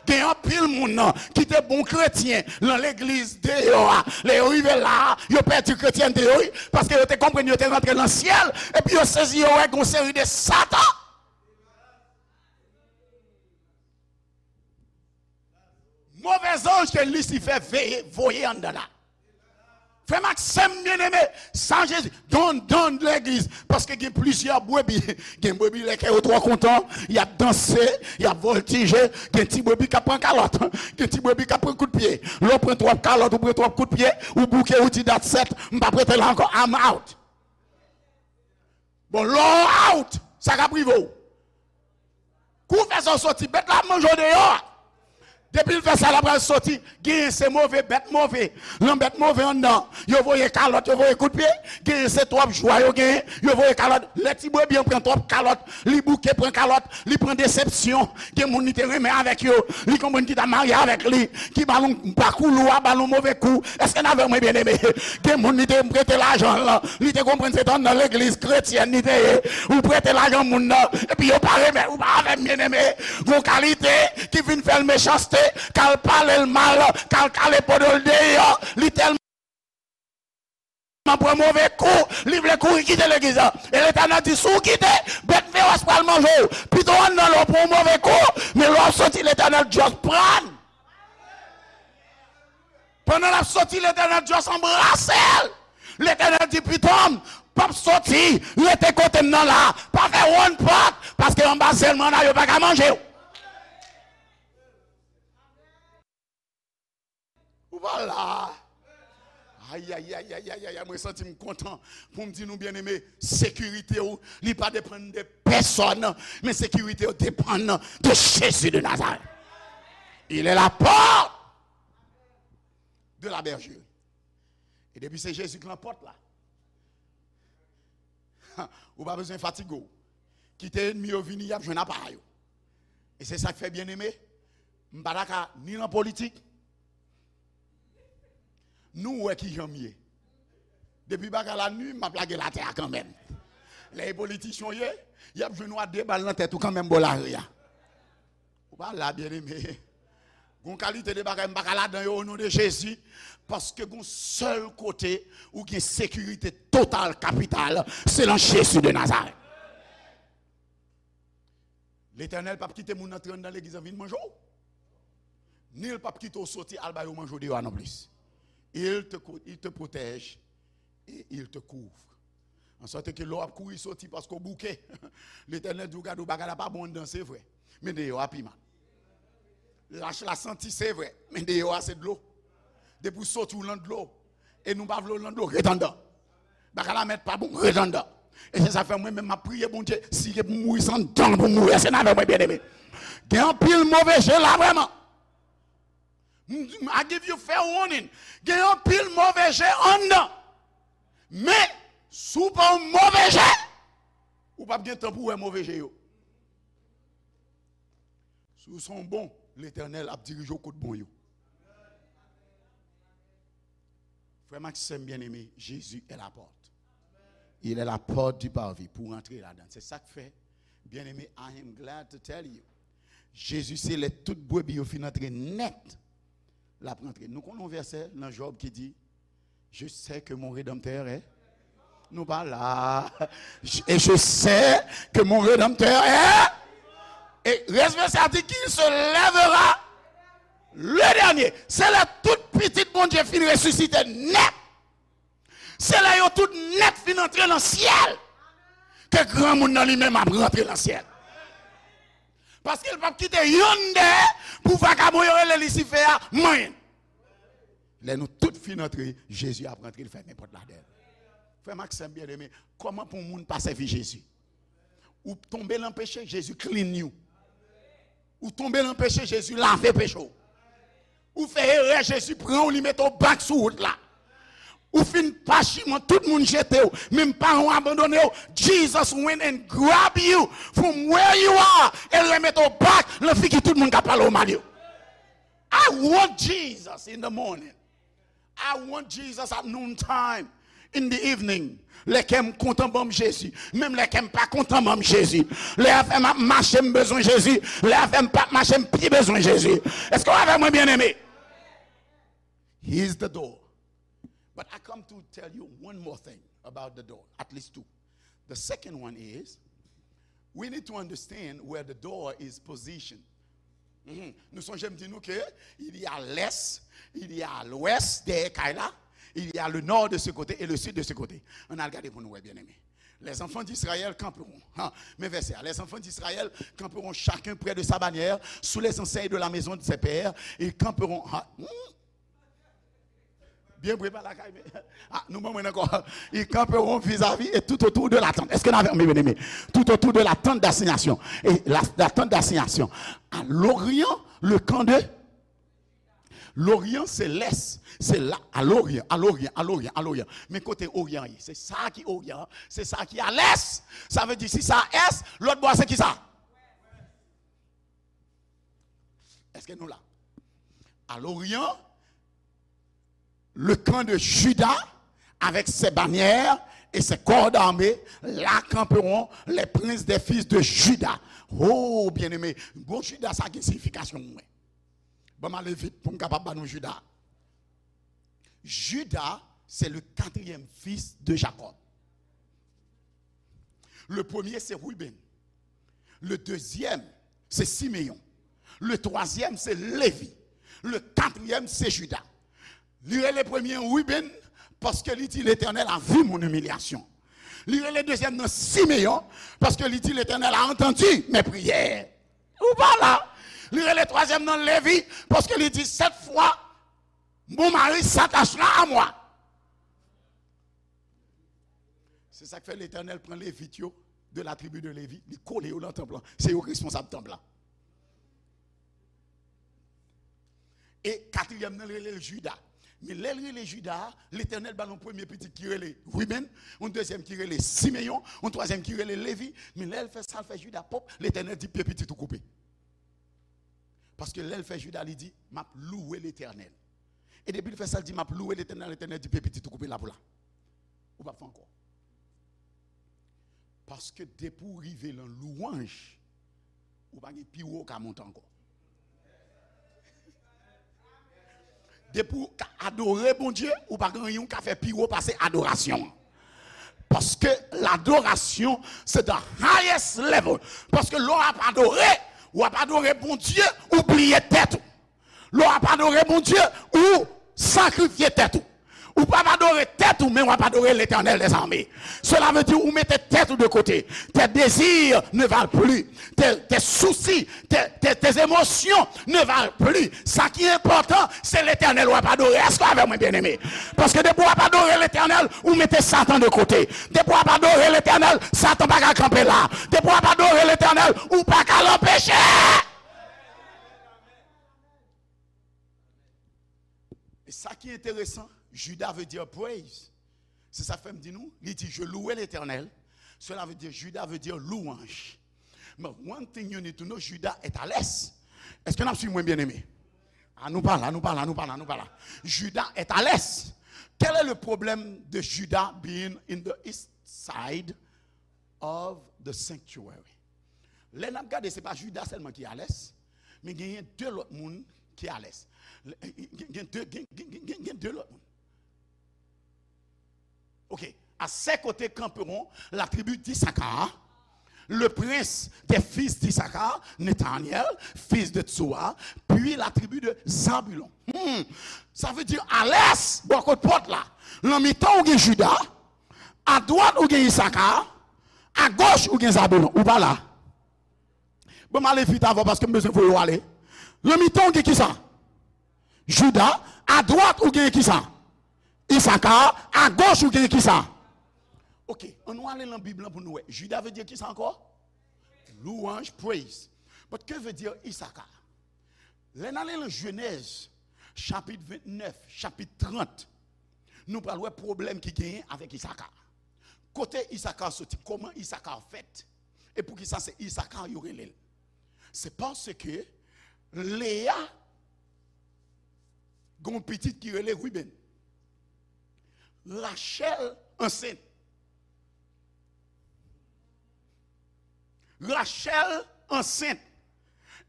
Gen anpil moun nan ki te bon kretyen nan legliz deyò a. Lè yo rive la, yo pèdi kretyènte yo, wi, paske yo te konprann yo te rantre nan syèl, epi yo sezi, yo wè gon seri de satan. Move zanj ke Lisifè veye, voye anndan la. Frè m ak sè m byeneme, sa Jezi, don, don legliz, paske gen plizyè brebi. Gen brebi lè kè yo twò kontan, y ap danse, y ap vòltije, gen ti brebi k ap pran kalòt, gen ti brebi k ap pran kout pye. Lè w pran twòp kalòt, ou pran twòp kout pye, ou bouke, ou di, "That's it, m p ap rete la ankò, I'm out." Bon, lè w out, sa k ap rive w? Kou w fè sa, w soti, bèt la ap manje w deyò a. Depi l fè sa, l ap pral soti. Genyen se move, bèt move. Nan bèt move anndan, yo voye kalòt, yo voye kout pye. Genyen se twòp jwa yo genyen, yo voye kalòt. Lè ti brebi an pran twòp kalòt, li bouke, pran kalòt, li pran desepsyon. Gen moun li te renmen avèk yo, li konprann ki ta marye avèk li, ki ba l yon bakoulou a, ba l yon move kou. Èske n avè mwen, byeneme? Gen moun li te prete lajan l, li te konprann se t anndan legliz kretyèn li te ye. Ou prete lajan moun nan, epi yo pa remèt ou, pa avè m, byeneme. Gon kalite ki vin fè l mechanste, k al pale l mal, k al kale podo l deyò, li tèlman pran move kou, li vle kouri kite legliz la. E Letènèl di, "Si w kite, bèt fewòs pral manje w. Pito w anndan lè w pran yon move kou, men lè w ap soti, Letènèl just pran." Pandan l ap soti, Letènèl just anbrase l. Letènèl di, "Pitom, p ap soti, rete kote m nan la. Pa fè wonn pòt, paske anba zèl m an la, yo pa ka manje w." Ou pa la. Ayayayayayay, mwen santi m kontan pou m di nou, byeneme, sekirite w, li pa depann de pèsòn, men sekirite w depann de Jezi de Nazarèt. Il est la porte de la bergerie. E depi se Jezi k lan pòt la, ou pa bezwen fatige w. Kite ènmi yo vini, y ap jwenn apa yo. E se sa k fè, byeneme, m pa ta ka ni nan politik, nou wè kijan m ye. Depi bagay la ni, m ap lage l atè a kanmenm. Lè e politisyen w ye, y ap jwenn ou a de bal nan tèt ou kanmenm bò lari a. Ou pa la, byeneme. Gon kalite de bagay m pa ka ladan yo, o non de Jezi, paske gon sèl kote ou gen sekirite total, kapital, se nan Jezi de Nazarèt. Letènèl p ap kite moun antre anndan legliz an vin manje w. Ni l p ap kite w soti al ba yo manje w deyò a non plis. Il te, co- il te protège et il te couvre. An sòt ke lè w ap kouri soti paske w bouke, Letènèl di w, "Gade w, bagay la pa bon anndan, se vre, men deyò a pi mal. Lach la santi, se vre, men deyò a se dlo. Depi w soti w lan dlo, e nou pa vle w lan dlo, ret anndan. Bagay la mèt pa bon, ret anndan." E se sa fè mwen menm m ap priye Bondye, si se pou m mouri, se anndan pou m mouri. Èske n avè mwen, byeneme? Gen anpil move je la vrèman. M- I give you fair warning. Gen anpil move je anndan. Men, Si w pa yon move je, ou p ap gen tan pou w wè move je yo. Si w se yon bon, Letènèl ap dirije w kot bon yo. Frè m ak sè m byeneme, Jezi è la pòt. Il est la porte du parvis pou w rantre ladan. Se sa k fè, byeneme, I am glad to tell you, Jezi se lè tout brebi yo fin antre nèt, l ap rantre. Nou konn yon vèsè nan Jòb ki di, Je sais que mon Rédempteur est. Nou pa la. Et je sais que mon Rédempteur est. Et responsable dit qu'il se lèvera le dernier. Se lè tout pitit Bondye fin resisite nèt. Se lè yo tout nèt fin antre nan syèl. Ke granmoun nan li menm ap rantre nan syèl. Paske l p ap kite yonn dèyè pou vakabon yo rele Lisifè a manyen. Lè nou tout fin antre, Jezi ap rantre, l fèmen pòt la dèyè l. Frè m ak sè m byeneme, kòman pou yon moun pa sèvi Jezi? Ou tonbe nan peche, Jezi clean you. Ou tonbe nan peche, Jezi lave peche w. Ou fè erè, Jezi pran w, li mete w back sou wout la. Ou fin pachiman, tout moun jete w, menm paran w abandone w. Jesus went and grab you from where you are, e l remete w back nan figi tout moun k ap pale w mal yo. I want Jesus in the morning. I want Jesus at noon time, in the evening. Lè kè m kontan, ban m Jezi. Menm lè kè m pa kontan, ban m Jezi. Lè afè m ap mache, m bezwen Jezi. Lè afè m p ap mache, m pi bezwen Jezi. Èske w avè mwen, byeneme? He is the door. But I come to tell you one more thing about the door, at least two. The second one is, we need to understand where the door is positioned. Mhm. Nou sonje m di nou ke il y a l'est, il y a l'ouest dèyè kay la, il y a le nord de ce côté et le sud de ce côté. Ann al gade pou nou wè, byeneme. Les enfants d'Israël camperont. Ha, men vèsè a. Les enfants d'Israël camperont chacun près de sa bannière, sous les enseignes de la maison de ses pères. Ils camperont. Ha, hmm? Byen vre pa lakay, men. Ah, nou ban mwen ankò. Ils camperont vis-à-vis et tout autour de la tente. Est-ce que nous avons bien aimé? Tout autour de la tente d'assignation. Et la, la tente d'assignation. À l'Orient, le camp de l'Orient, c'est l'Est. C'est là, à l'Orient, à l'Orient, à l'Orient, à l'Orient. Men kote Oryan ye? Se sa ki Oryan, se sa ki a l'Est. Sa vle di si sa a Est, lòt bò a se ki sa? Èske nou la? À l'Orient, le camp de Juda avec ses bannières et ses corps d'armée, là camperont les princes des fils de Juda. Oh, byeneme, bon, Juda sa gen siyifikasyon mwen. Ban m ale vit pou m kapab ba nou Juda. Juda, c'est le quatrième fils de Jacob. Le premier, c'est Ruben. Le deuxième, c'est Siméon. Le troisième, c'est Lévi. Le quatrième, c'est Juda. Li rele premye Ruben, paske li di, Letènèl a vu mon imilyasyon. Li rele dezyèm nan Simeyon, paske li di, Letènèl a antandi mes prières. Ou pa la. Li rele twazyèm nan Levi, paske li di, cette fois, mon mari s'attachera à moi. Se sa k fè Letènèl pran Levit yo, de la tribi de Levi, li kole yo nan tanp lan. Se yo k responsab tanp lan. E katriyèm nan, l rele l Jida. Men lè l rele Jida a, Letènèl ba l yon premye pitit ki rele Ribenn, yon dezyèm ki rele Simeyon, yon twazyèm ki rele Levi. Men lè l fè sa, l fè Jida pwòp, Letènèl di, "Pye pitit ou koupe." Paske lè l fè Jida, li di, "M ap louwe Letènèl." E depi l fè sa, l di, "M ap louwe Letènèl," Letènèl di, "Pye pitit ou koupe la pou la. Ou p ap fè ankò." Paske depi w rive nan lwanj, ou pa gen pi wo w ka monte ankò. Depi w ka adore Bondye, ou pa gen anyen w ka fè pi wo pase adorasyon an. Paske ladorasyon, se the highest level. Paske lè w ap adore, w ap adore Bondye, ou bliye tèt ou. Lè w ap adore Bondye, ou sakrifye tèt ou. Ou p ap adore tèt ou, men w ap adore Letènèl dèzame. Cela veut dire ou mete tèt ou de kote. Tes désirs ne valent plus. Tes, tes soucis, tes, tes, tes émotions ne valent plus. Sa ki enpòtan, se Letènèl w ap adore. Èske w avè mwen, byeneme? Paske depi w ap adore Letènèl, ou mete Satan de kote. Depi w ap adore Letènèl, Satan pa ka kanpe la. Depi w ap adore Letènèl, ou pa ka l anpeche. E sa ki enteresan, Jida vle di praise. C'est ça fait me dit nous, il dit, je louais l'Éternel. Cela veut dire, Juda veut dire louange. But one thing you need to know, Juda est à l'est. Est-ce que n ap suiv mwen, bien-aimé? Ah, nou pa la, nou pa la, nou pa la, nou pa la. Juda est à l'est. Quel est le problème de Juda being in the east side of the sanctuary? Lè n ap gade, se pa Juda sèlman ki alès, men genyen de lòt moun ki alès. Gen, gen de, gen, gen, gen, gen, gen de lòt moun. Ok. À ses côtés camperont la tribu d'Issachar, le prince des fils d'Issachar, Nethanel, fils de Tsoa, puis la tribu de Zabulon. Hmm. Sa vle di, alès, bò kot pòt la, nan mitan ou gen Juda, adwat ou gen Isaka, agoch ou gen Zabulon. Ou pa la. Bon, m ale vit avè w paske m bezwen voye w ale. Nan mitan ou gen kisa? Juda, adwat ou gen kisa? Isaka, agoch ou gen kisa? Ok, ann nou ale nan Bib lan pou nou wè. Juda vle di kisa ankò? Louange, praise. But que veut dire Isaka? Lè n ale nan Jenèz, chapit vennèf, chapit trant, nou pral wè pwoblèm ki genyen avèk Isaka. Kote Isaka soti? Kòman Isaka fèt? E poukisa se Isaka yo rele l? Se paske Leya gen yon pitit ki rele Ruben. Rachèl ansent. Rachèl ansent.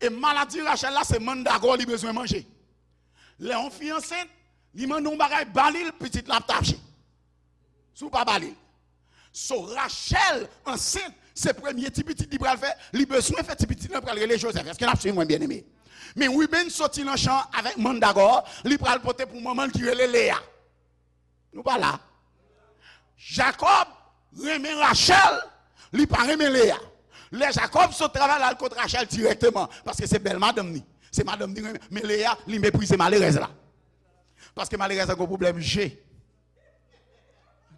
E maladi Rachèl la, se mandagò li bezwen manje. Lè yon fi ansent, li mande yon bagay, ba li l, pitit la ap tache. Si w pa ba li l. So, Rachèl ansent, se premye ti pitit li pral fè, li bezwen fè ti pitit lan pral rele Jozèf. Èske n ap suiv mwen, byeneme? Men Ruben soti nan chan avèk mandagò, li pral pote pou manman l ki rele Leya. Nou pa la. Jakòb renmen Rachèl, li pa renmen Leya. Lè Jakòb sot travay la, l al kot Rachèl dirèkteman, paske se bèl madanm li. Se madanm li renmen, men Leya, li meprize malerèz la. Paske malerèz la gen pwoblèm je.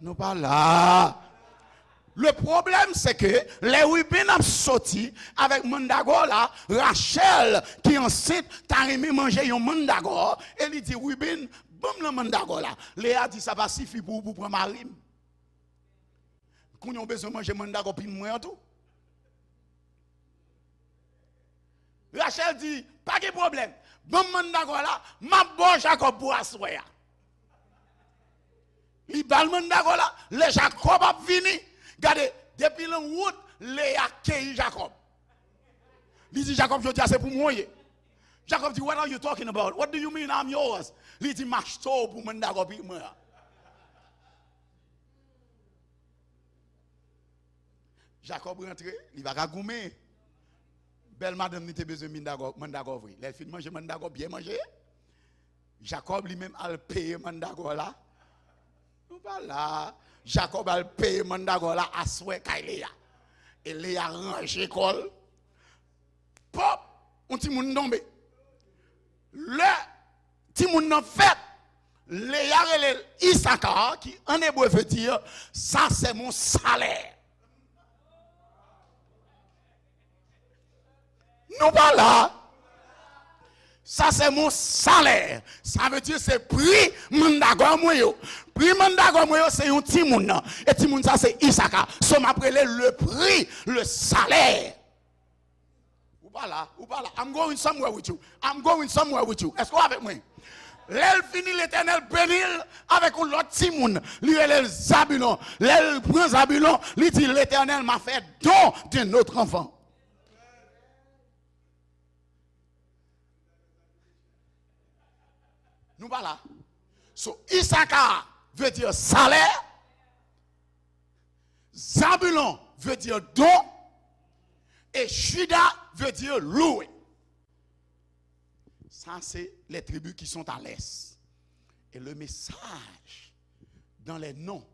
Nou pa la. Le problème, c'est que lè Ruben ap soti avèk mandagò la, Rachèl, ki ansent, ta renmen manje yon mandagò, e li di, Ruben, ban m nan mandagò la. Leya di, sa pa sifi pou ou pou pran mari m. Kounye a w bezwen manje mandagò pitit mwen an tou. Rachèl di, pa gen pwoblèm. Ban m mandagò la, m ap ba w Jakòb pou aswè a. Li ba l mandagò la, lè Jakòb ap vini, gade, depi nan wout, Leya keyi Jakòb. Li di, Jakòb, jodi a se pou mwen w ye. Jakòb di, what are you talking about? What do you mean I'm yours? Li di, m achte w pou mandagò pitit mwen an. Jakòb rantre, li pa ka goumen. Bèl madanm li te bezwen mandagò, mandagò vre. Lè l fin manje mandagò, byen manje, Jakòb li menm al peye mandagò la. Nou pa la. Jakòb al peye mandagò la aswè kay Leya. E Leya ranje kò l. Pòp! Yon timoun tonbe. Lè timoun nan fèt, Leya rele l Isaka, ki an ebre vle di, ça c'est mon salaire. Nou pa la. Ça c'est mon salaire. Sa vle di se pri mandagò mwen yo. Pri mandagò mwen yo se yon timoun nan. E timoun sa se Isaka. So m ap rele le prix, le salaire. Ou pa la, ou pa la. I'm going somewhere with you. I'm going somewhere with you. Èske w avèk mwen? Lè l fini, Letènèl beni l avèk yon lòt timoun. Li rele l Zabilon. Lè l pran Zabilon, li di, Letènèl m'a fait don d'un autre enfant. Nou pa la. So, Isaka vle di salè. Zabulon vle di don. E Juda vle di louwe. Ça, c'est les tribus qui sont à l'est. Et le message dans les noms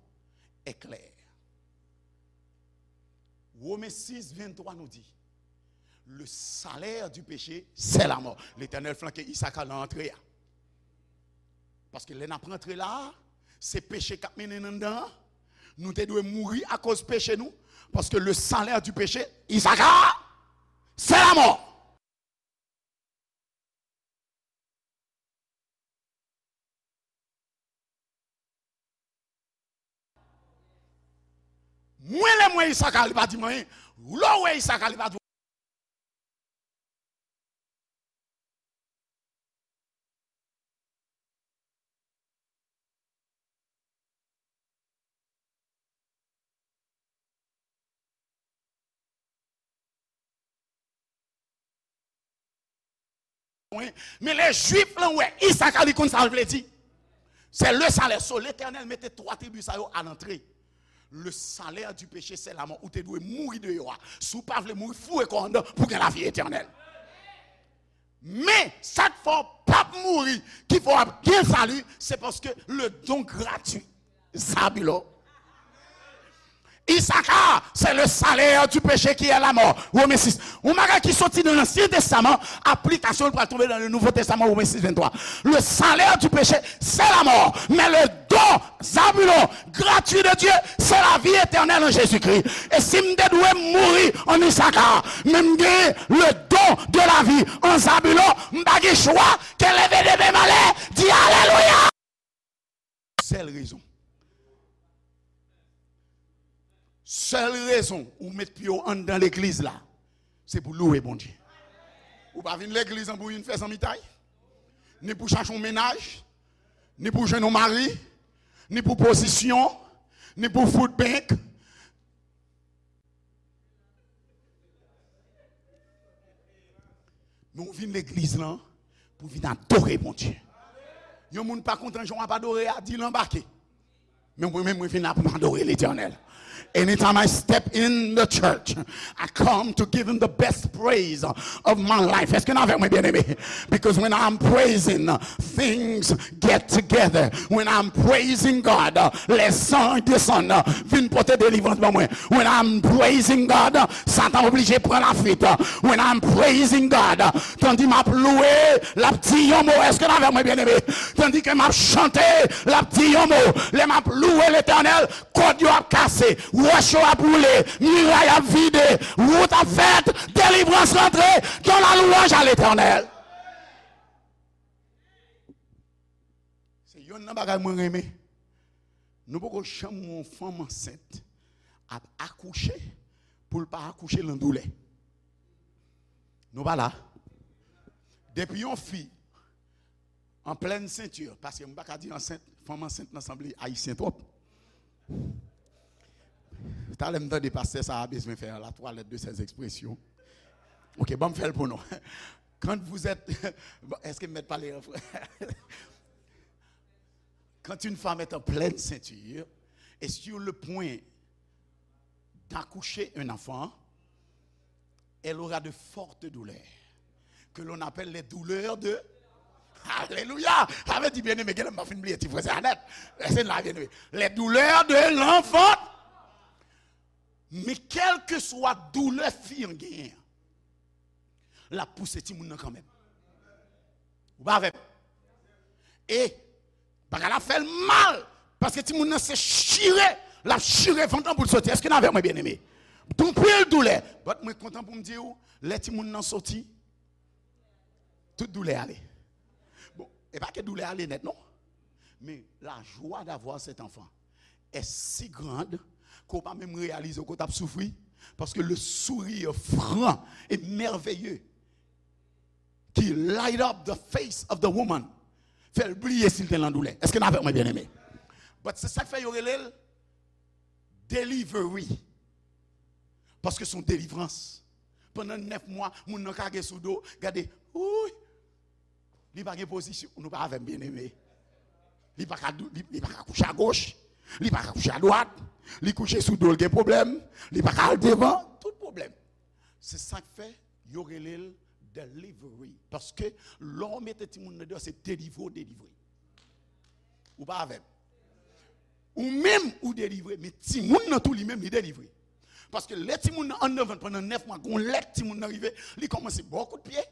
est clair. Women sis venntwa nou di, le salaire du péché, c'est la mort. Letènèl flanke Isaka nan antre a. Paske lè n ap rantre la a, se peche k ap mennen n anndan an. Nou te dwe mouri akoz peche nou. Paske le salaire du péché, Isaka, c'est la mort. Mwen, lè m wè Isaka, li pa di m anyen. Lè w wè Isaka, li pa di Mwen, men lè Jwif lan wè Isaka, li konn sa l vle di. Se le salè. So, Letènèl mete twa tribi sa yo a lantre. Le salè di peche se lamò. Ou te dwe mouri deyò a. Si w pa vle mouri, foure kò w anndan pou gen lavi etènèl. Men, sa k fè w p ap mouri, ki fè w ap gen sali, se paske le don gratuit. Zabilo. Isaka, c'est le salaire du péché qui est la mort. Women sis. Yon bagay ki soti nan Ansyen Testaman, aplikasyon l pral tonbe nan le Nouveau Testament, Women sis venntwa. Le salaire du péché, c'est la mort. Mais le don, Zabulon, gratuit de Dieu, c'est la vie éternelle en Jésus-Christ. E si m te dwe mouri an Isaka, men m gen le don de la vie an Zabulon, m pa gen chwa ke leve de men m anlè, di alelouya. Sèl rezon. Sèl rezon ou met pye w anndan legliz la, se pou louwe Bondye. Ou pa vin legliz lan pou vin fè zanmitay, ni pou chache yon mennaj, ni pou jwenn yon mari, ni pou pozisyon, ni pou food bank. Men w vin legliz lan pou vin adore Bondye. Yon moun pa kontan jan w ap adore a, di l anbake. Men mwen menm, mwen vin la pou m adore Letènèl. Anytime I step in the church, I come to give him the best praise of my life. Èske n avè mwen, byeneme? Because when I'm praising, things get together. When I'm praising God, lè zanj desann, vin pote delivrans ban mwen. When I'm praising God, Satan oblije pran lafwit. When I'm praising God, tandi m ap louwe, l ap di yon mo. Èske n avè mwen, byeneme? Tandi ke m ap chante, l ap di yon mo. Lè m ap louwe Letènèl, kòd yo ap kase, wòch yo ap woule, miray ap vide, wout ap fèt, delivrans rantre, dans la louange à l'Éternel. Se yonn nan bagay mwen renmen. Nou poko janm wè yon fanm ansent ap akouche pou l pa akouche lan doulè. Nou pa la. Depi yon fi an plèn senti, paske m pa ka di ansent, fanm ansent nan sanble ayisyen twòp. Talè m tande pastè sa a bezwen fè la toilette de ses expressions. Ok, ban m fè l pou nou. Quand vous êtes, bon, èske m mèt pale an fran-, quand une femme est en pleine ceinture et sur le point d'accoucher un enfant, elle aura de fortes douleurs, que l'on appelle les douleurs de... Alelouya! Sa vle di, byeneme, genlè m ap fin bliye ti franse a nèt. Rete la, byeneme. Les douleurs de l'enfant. Men kèlkeswa doulè fi an genyen an, l ap pouse timoun nan kanmenm. Ou pa avè m? E bagay la fè l mal, paske timoun nan se chire, l ap chire vant lan pou l soti. Èske n avè mwen, byeneme? Gon pil doulè. But mwen kontan pou m di w, lè timoun nan soti, tout doulè ale. Bon, e pa ke doulè ale nèt, non. Mais la joie d'avoir cet enfant est si grande ke w pa menm reyalize ke w t ap soufri, paske le sourire franc et merveilleux qui light up the face of the woman fè l bliye si l te lan doulè. Èske n avèk mwen, byeneme? But se sa k fè yo rele l delivery. Paske se yon delivrans. Pandan nèf mwa, moun nan kage sou do, gade, wouy, li pa gen pozisyon. Nou pa avè m, byeneme. Li pa ka dou-, li, li pa ka kouche agoch, li pa ka kouche adwat, li kouche sou do l gen pwoblèm, li pa ka al devan, tout pwoblèm. Se sa k fè yo rele l delivery. Paske lè w mete timoun nan deyò, se delivre w delivre. Ou pa avè m? Ou menm, ou delivre, men timoun nan tou, li menm, li delivre. Paske lè timoun nan anndan vant pandan nèf mwa, gon lè timoun nan rive, li kòmanse ba w kout pye,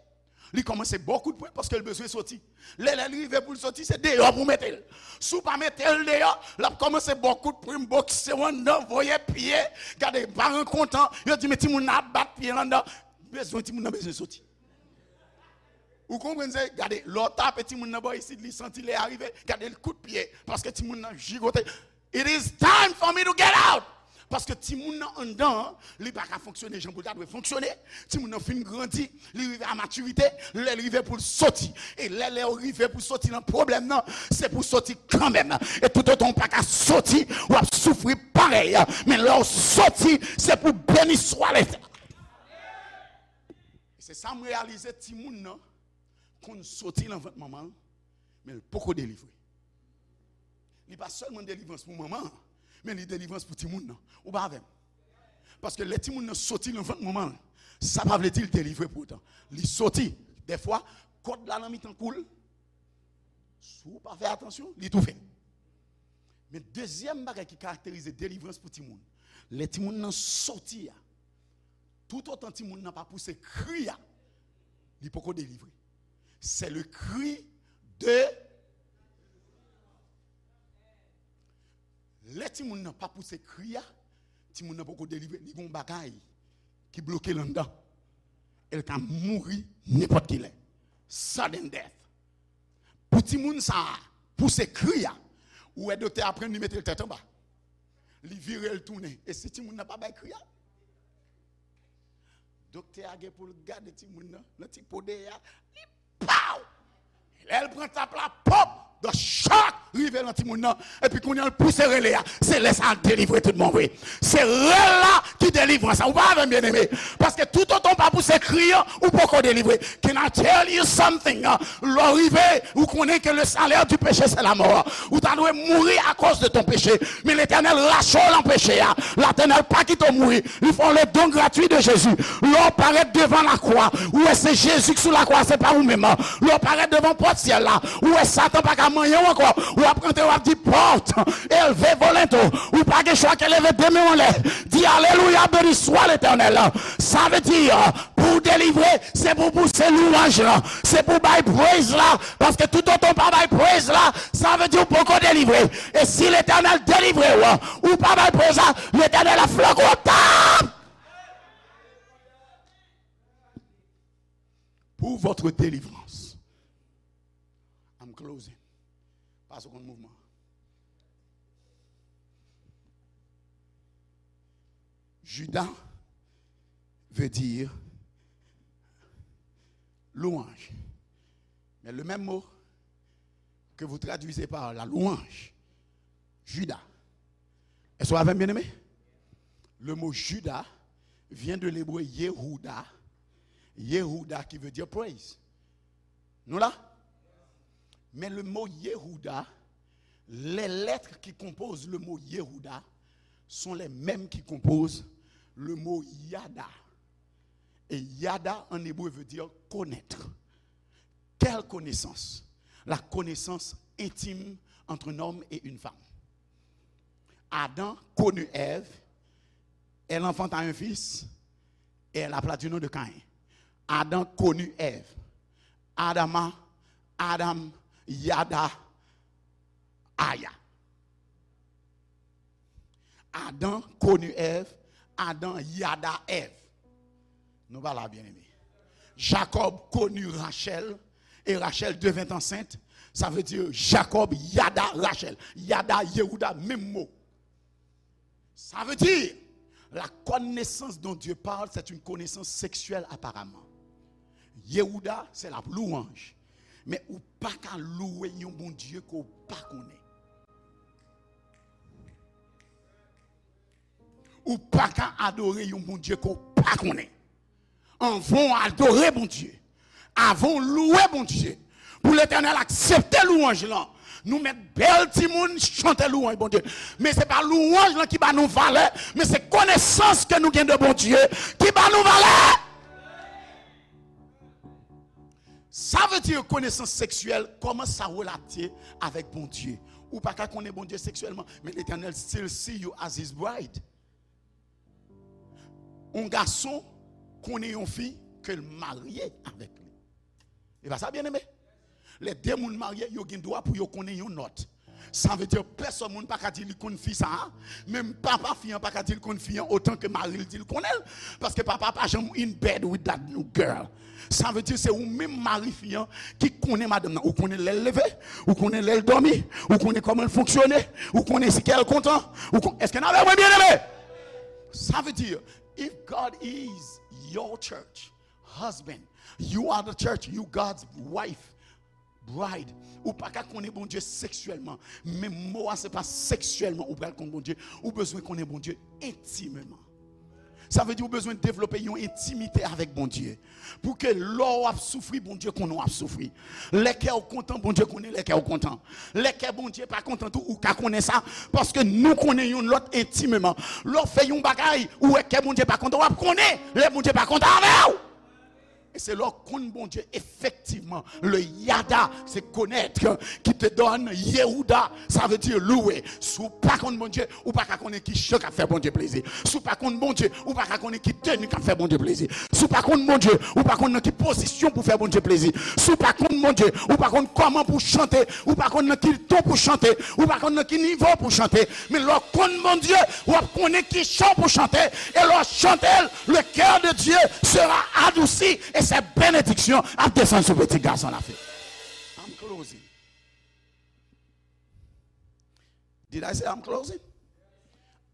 li kòmanse ba w kout pwen, paske l bezwen soti. Lè, lè l rive pou l soti, se deyò pou w mete l. Si w pa mete l deyò, l ap kòmanse ba w kout pwen, bokse w anndan, voye pye. Gade, paran kontan, yo di, men timoun nan ap bat pye l anndan. Bezwen, timoun nan bezwen soti. Ou konprann se, gade, lè w tape timoun nan bò isit, li santi lè a rive, gade l kout pye, paske timoun nan jigote. It is time for me to get out. Paske timoun nan anndan an, li pa ka fonksyone jan pou l ta dwe fonksyone. Timoun nan fin grandi, li rive a matirite, lè l rive pou l soti. E lè, lè w rive pou soti nan pwoblèm nan, se pou soti kanmenm. E toutotan w pa ka soti, w ap soufri parèy. Men lè w soti, se pou beni swa Letènèl. Se sa m reyalize, timoun nan konn soti nan vant manman l, men l poko delivre. Li pa sèlman delivrans pou manman an, men li delivrans pou timoun nan. Ou pa avè m? Paske lè timoun nan soti nan vant manman l, sa pa vle di l delivre pou otan. Li soti. Dèfwa, kòd la nan mitan kou l. Si w pa fè atansyon, li toufe. Men dezyèm bagay ki karakterize delivrans pou timoun, lè timoun nan soti a, toutotan timoun nan pa pouse kri a, li poko delivre. C'est le cri de Lè timoun nan pa pouse kri a, timoun nan poko delivre, li gon bagay ki bloke l anndan. E l ka mouri nenpòt ki lè. Sudden death. Pou timoun sa a pouse kri a, ou wè doktè a pran l, li mete l tèt anba. Li vire l tounen. E si timoun nan pa bay kri a? Doktè a gen pou l gade timoun nan, nan ti po dèyè a, li pow! Lè l pran tap la, pòp! The shock rive nan timoun nan, epi kounye a l pouse rele a. Se lè sa a l delivre tout bon vre. Se rèl la ki delivrans la. Ou pa avè m, byeneme? Paske toutotan w pa pouse kri an, ou poko delivre. Can I tell you something? Lè w rive, ou konnen ke le salaire du péché, c'est la mort. Ou ta dwe mouri akoz de ton péché. Men Letènèl rache w nan peche a. Letènèl pa kite w mouri. Li fè w le don gratuit de Jésus. Lè w parèt devan lakwa, ou wè se Jezi ki sou lakwa, se pa ou menm. Lè w parèt devan pòt syèl la, ou wè Satan pa ka manyen w ankò. W ap rantre, w ap di, pòt, elve volonte w. Ou pa gen chwa ke leve de men w anlè. Di, alelouya, beni swa Letènèl. Sa vle di, pou w delivre, se pou w pouse louwanj lan. Se pou w bay praise la. Paske toutotan w pa bay praise la, sa vle di w poko delivre. E si Letènèl delivre w, ou pa bay praise la, Letènèl ap flanke w tap. Pour votre délivrance. I'm closing. Pase w konn mouvman. Juda veut dire louange. Mais le même mot que vous traduisez par la louange, Juda. Est-ce que vous avez bien aimé? Le mot Juda vient de l'hébreu Yehuda. Yehuda qui veut dire praise. Nou la? Mais le mot Yehuda, les lettres qui composent le mot Yehuda sont les mêmes qui composent le mot Yada. Et Yada en hébreu veut dire connaître. Quelle connaissance? La connaissance intime entre un homme et une femme. Adam connut Ève, elle enfanta un fils, et elle appela du nom de Caïn. Adam connut Ève. Adama, Adam, Yada, Aya. Adam connut Ève, Adam yada Ève. Nou pa la, byeneme. Jacob connut Rachel, et Rachel devint enceinte. Ça veut dire Jacob yada Rachel. Yada, Yehuda, menm mo. Ça veut dire, la connaissance dont Dieu parle, c'est une connaissance sexuelle apparemment. Yehuda, c'est la louange. Men ou pa ka louwe yon Bondye ke w pa konnen. Ou pa ka adore yon Bondye ke w pa konnen. Anvan w adore Bondye, avan w louwe Bondye, pou Letènèl aksepte louwanj lan, nou mèt bèl timoun chante louwanj Bondye. Men se pa louwanj lan ki ba nou valè, men se konesans ke nou gen de Bondye ki ba nou valè. Sa vle di konesans seksyèl, kòman sa relate avèk Bondye? Ou pa ka konnen Bondye seksyèlman, men Letènèl still see you as his bride. Yon gason konnen yon fi ke l marye avèk li. E pa sa, byeneme? Lè de moun marye, yo gen dwa pou yo konnen yon lòt. Sa vle di pèsòn moun pa ka di li konn fi sa a, menm papa fi an pa ka di l konn fi an otan ke mari l di l konnen l, paske papa pa janm in bed with that new girl. Sa vle di se ou menm mari fi an ki konnen madanm nan. Ou konnen lè l leve, ou konnen lè l dòmi, ou konnen kòman l fonksyone, ou konnen si kè l kontan, ou kon... Èske n avè mwen, byeneme? Sa vle di, if God is your church, husband, you are the church, you God's wife, bride. Ou pa ka konnen Bondye seksyèlman. Men mo a se pa seksyèlman ou pral konn Bondye. Ou bezwen konnen Bondye entimeman. Sa vle di ou bezwen devlope yon entimite avèk Bondye. Pou ke lè w ap soufri, Bondye konnen w ap soufri. Lè kè w kontan, Bondye konnen lè kè w kontan. Lè kè Bondye pa kontan tou, ou ka konnen sa. Paske nou konnen youn lòt entimeman. Lè w fè yon bagay, ou wè kè Bondye pa kontan, w ap konnen lè Bondye pa kontan avè w. E se lè w konn Bondye efektivman. Le yada, se connaître, qui te donne Yehuda, sa vle di louwe. Si w pa konn Bondye, ou pa ka konnen ki jan k ap fè Bondye plezi. Si w pa konn Bondye, ou pa ka konnen ki teni k ap fè Bondye plezi. Si w pa konn Bondye, ou pa konn nan ki pozisyon pou fè Bondye plezi. Si w pa konn Bondye, ou pa konn kòman pou chante, ou pa konn nan ki ton pou chante, ou pa konn nan ki nivo pou chante. Men lè w konn Bondye, w ap konnen ki jan pou chante, e lè w chante l, le cœur de Dieu sera adouci, e se benediksyon ap desann sou pitit gason la fi. I'm closing. Did I say I'm closing?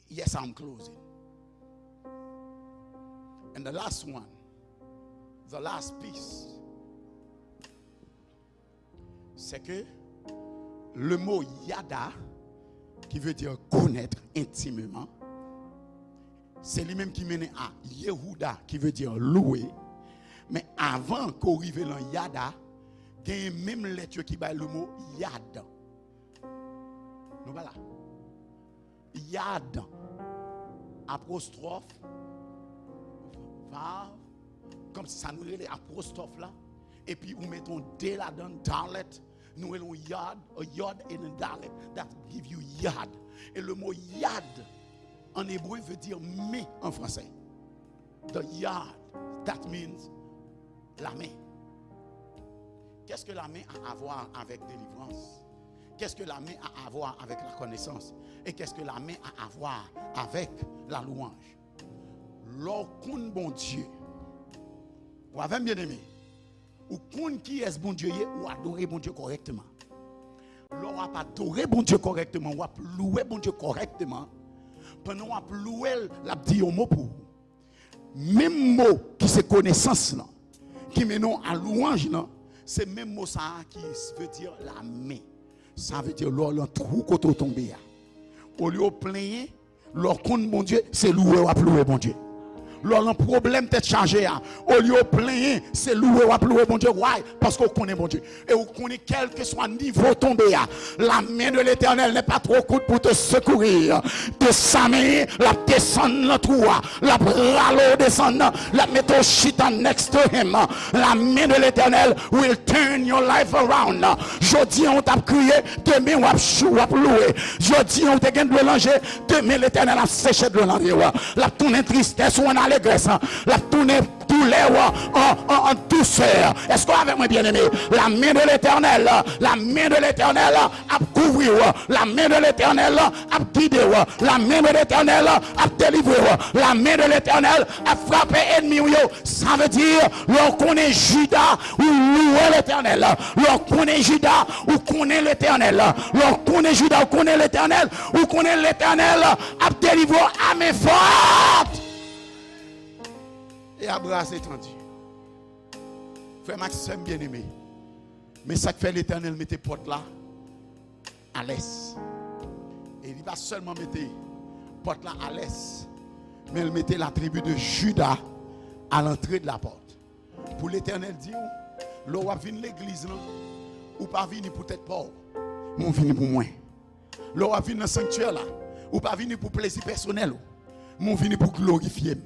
Yes, I'm closing. And the last one, the last piece, c'est que le mot yada, qui veut dire connaître intimement, se li menm ki mennen a Yehuda, ki vle di louwe. Men avan ke w rive nan yada, genyen menm lèt yo ki bay le mot yad. Nou pa la. Yad, apostwòf, vav, kòmsi sa nou rele apostwòf la, epi ou met yon de ladan, dalet, nou rele yon yad, a yod and a dalet, that give you yad. E le mo yad, an ebre, vle di men an fransè. The yad, that means la main. Qu'est-ce que la main a à voir avec délivrance? Qu'est-ce que la main a à voir avec la connaissance? Et qu'est-ce que la main a à voir avec la louange? Lè w konn Bondye, w avè m, byeneme, ou konn kiyès Bondye ye, ou adore Bondye kòrèkteman. Lè w ap adore Bondye kòrèkteman, w ap louwe Bondye kòrèkteman, pandan w ap louwe l, l ap di yon mo pou ou. Menm mo ki se konesans lan, ki mennen w a lwanj lan, se menm mo sa a ki vle di la main. Sa vle di lè w nan twou kote w tonbe a. Olye w plenyen, lè w konn Bondye, se louwe w ap louwe Bondye. Lè w nan pwoblèm tèt chaje a, olye w plenyen, se louwe w ap louwe Bondye. Why? Paske w konnen Bondye. E ou konnen kèlkeswa nivo w tonbe a, la main de l'Éternel n'est pas trop courte pour te secourir. De sa men, l ap desann nan twou a, l ap rale w desann nan, l ap mete w chita next to him. La main de l'Éternel will turn your life around. Jodi an, ou t ap kriye, demen w ap chou, w ap louwe. Jodi an, ou te gen dlo nan je, demen Letènèl ap seche dlo nan je w. L ap tounen tristès ou an alegrès. L ap tounen doulè w an, an, an dousè. Èske w avèk mwen, byeneme? La main de l'Éternel, la main de l'Éternel ap kouvri w. La main de l'Éternel ap gide w. La main de l'Éternel ap delivre w. La main de l'Éternel ap frape ènmi w yo. Sa vle di, lè w konnen Jida, ou louwe Letènèl. Lè w konnen Jida, ou konnen Letènèl. Lè w konnen Jida, ou konnen Letènèl. Ou konnen Letènèl ap delivre w a men fòt e a bra etandi. Frè m ak sè m byeneme, men sa k fè Letènèl mete pòt la alès. E li pa sèlman mete pòt la alès, men l mete la tribi de Jida à l'entrée de la porte. Pou Letènèl di w, lè w ap vin legliz lan, ou pa vini pou tèt pa w, men w vini pou mwen. Lè w ap vin nan sanktyè la, ou pa vini pou plezi pèsonèl ou, men w vini pou glorifye m.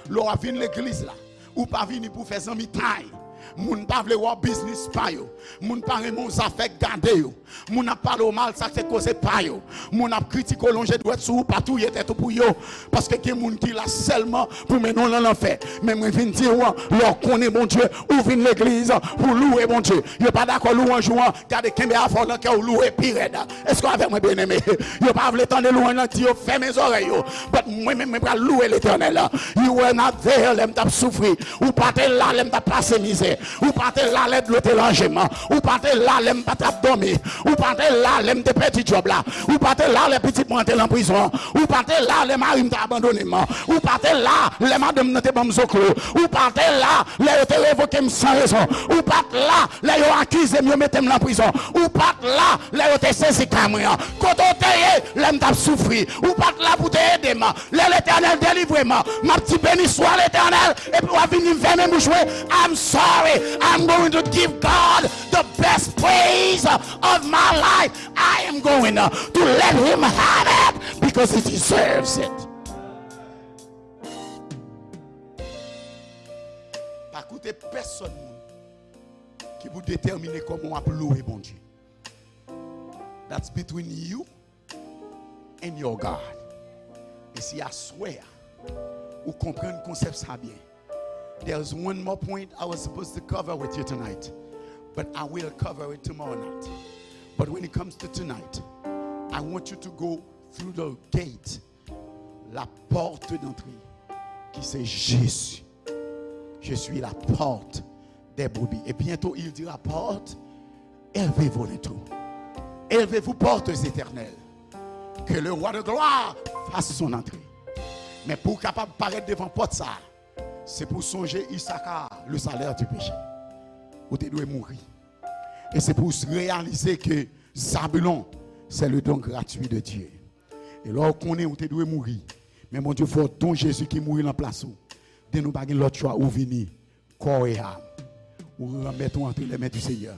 Lè w ap vin legliz la, ou pa vini pou fè zanmitay. Moun pa vle wè w biznis pa yo. Moun pa renmen w zafè gade yo. Moun ap pale w mal, sa se koze pa yo. Moun ap kritike w, lonje dwèt sou ou, pa touye tèt ou pou yo. Paske gen moun ki la sèlman pou mennen w nan lanfè. Men mwen vin di w, lè w konnen Bondye, ou vin legliz pou louwe Bondye. Yo pa dakò louwanj ou an, gade kenbe afè w nan kè w, louwe pi rèd. Èske w avèk mwen, byeneme? Yo pa vle tande louwanj lan, di yo fèmen zòrèy yo. But mwen menm, mwen pral louwe Letènèl. You were not there lè m t ap soufri. Ou pa te la lè m t ap pase mizè. Ou pa te la lè dlo te ranje m. Ou pa te la lè m pa t ap dòmi. Ou pa te la lè m te pèdi djòb la. Ou pa te la lè pitit mwen te nan prizon. Ou pa te la lè mari m te abandone m. Ou pa te la lè madanm nan te ban m zoklo. Ou pa te la lè yo te revoke m san rezon. Ou pa t la lè yo akize m, yo mete m nan prizon. Ou pa t la lè yo te sezi kay mwen an. Kote w te ye lè m t ap soufri? Ou pa t la pou te ede m. Lè Letènèl delivre m, m ap di, "Beni swa Letènèl," epi w ap vin di m, "Fèmen bouch mwen." I'm sorry. I'm going to give God the best praise of my life. I am going to let him have it because he deserves it. Pa koute pèsonn moun ki pou detèmine kòman w ap louwe Bondye. That's between you and your God. E si aswè a, ou konprann konsèp sa byen. There's one more point I was supposed to cover with you tonight, but I will cover it tomorrow night. But when it comes to tonight, I want you to go through the gate, la porte d'entrée, qui c'est Jésus. Je suis la porte des brebis. Et bientôt, il dira, porte, élevez vos linteaux. Élevez-vous, portes éternelles. Que le roi de gloire fasse son entrée. Men pou w kapab parèt devan pòt sa a, se pou w sonje Isaka, le salaire du péché. Ou te dwe mouri. E se pou w reyalize ke Zabulon, c'est le don gratuit de Dieu. E lè w konnen ou te dwe mouri, men Bondye fè w don Jezi ki mouri nan plas ou. Den nou pa gen lòt chwa, ou vini. Kò e a, ou remèt ou entre les mains du Seigneur.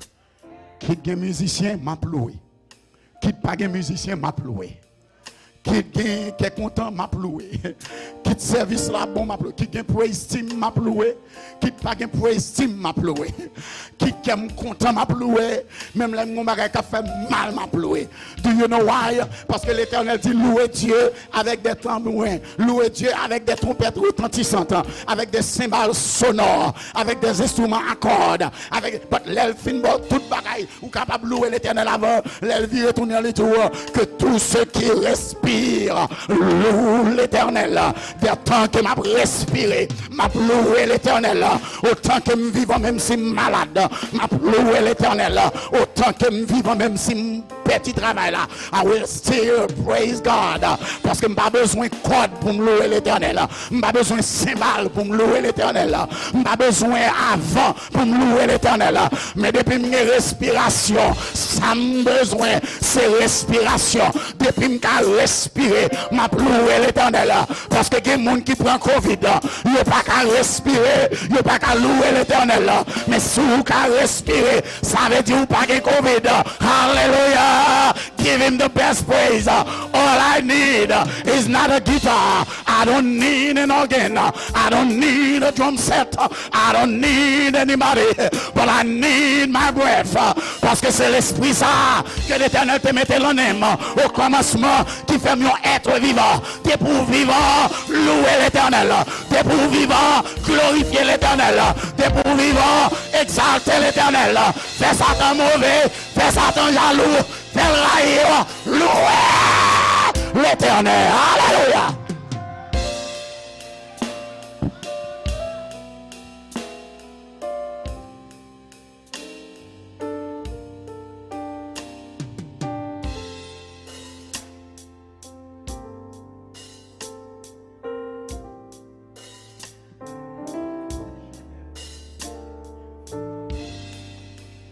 Kit gen mizisyen, m ap louwe. Kit pa gen mizisyen, m ap louwe. Kit gen kè kontan, m ap louwe. Kit sèvis la bon, m ap louwe. Kit gen praise team, m ap louwe. Kit pa gen praise team, m ap louwe. Kit kè m kontan, m ap louwe. Menm lè m gon bagay k ap fè m mal, m ap louwe. Do you know why? Paske Letènèl di, louez Dieu avec des tambourins, louez Dieu avec des trompettes retentissantes, avec des cymbales sonores, avec des instruments à cordes, avec, but lè l fin ba w tout bagay, ou kapab louwe Letènèl avan, lè l vire tounen li di w, que tout ce qui respire loue l'Éternel. Dè tan ke m ap respire, m ap louwe Letènèl. Otan ke m vivan, menm si m malad, m ap louwe Letènèl. Otan ke m vivan, menm si m pèdi travay la, I will still praise God. Paske m pa bezwen kòd pou m louwe Letènèl. M pa bezwen senbal pou m louwe Letènèl. M pa bezwen avan pou m louwe Letènèl. Men depi m gen respirasyon, sa m bezwen, se respirasyon. Depi m ka respire, m ap louwe Letènèl. Paske gen moun ki pran kovid, yo pa ka respire, yo pa ka louwe Letènèl. Men si w ka respire, sa vle di w pa gen kovid. Hallelujah! Give him the best praise. All I need is not a guitar. I don't need an organ. I don't need a drum set. I don't need anybody, but I need my breath. Paske se lespri sa ke Letènèl te mete lan men m o kòmansman, ki fè m yon èt vivan. Depi w vivan, louwe Letènèl. Depi w vivan, glorifye Letènèl. Depi w vivan, egzalte Letènèl. Fè Satan move, fè Satan jalou, fè l rayi w. Louwe Letènèl. Alelouya!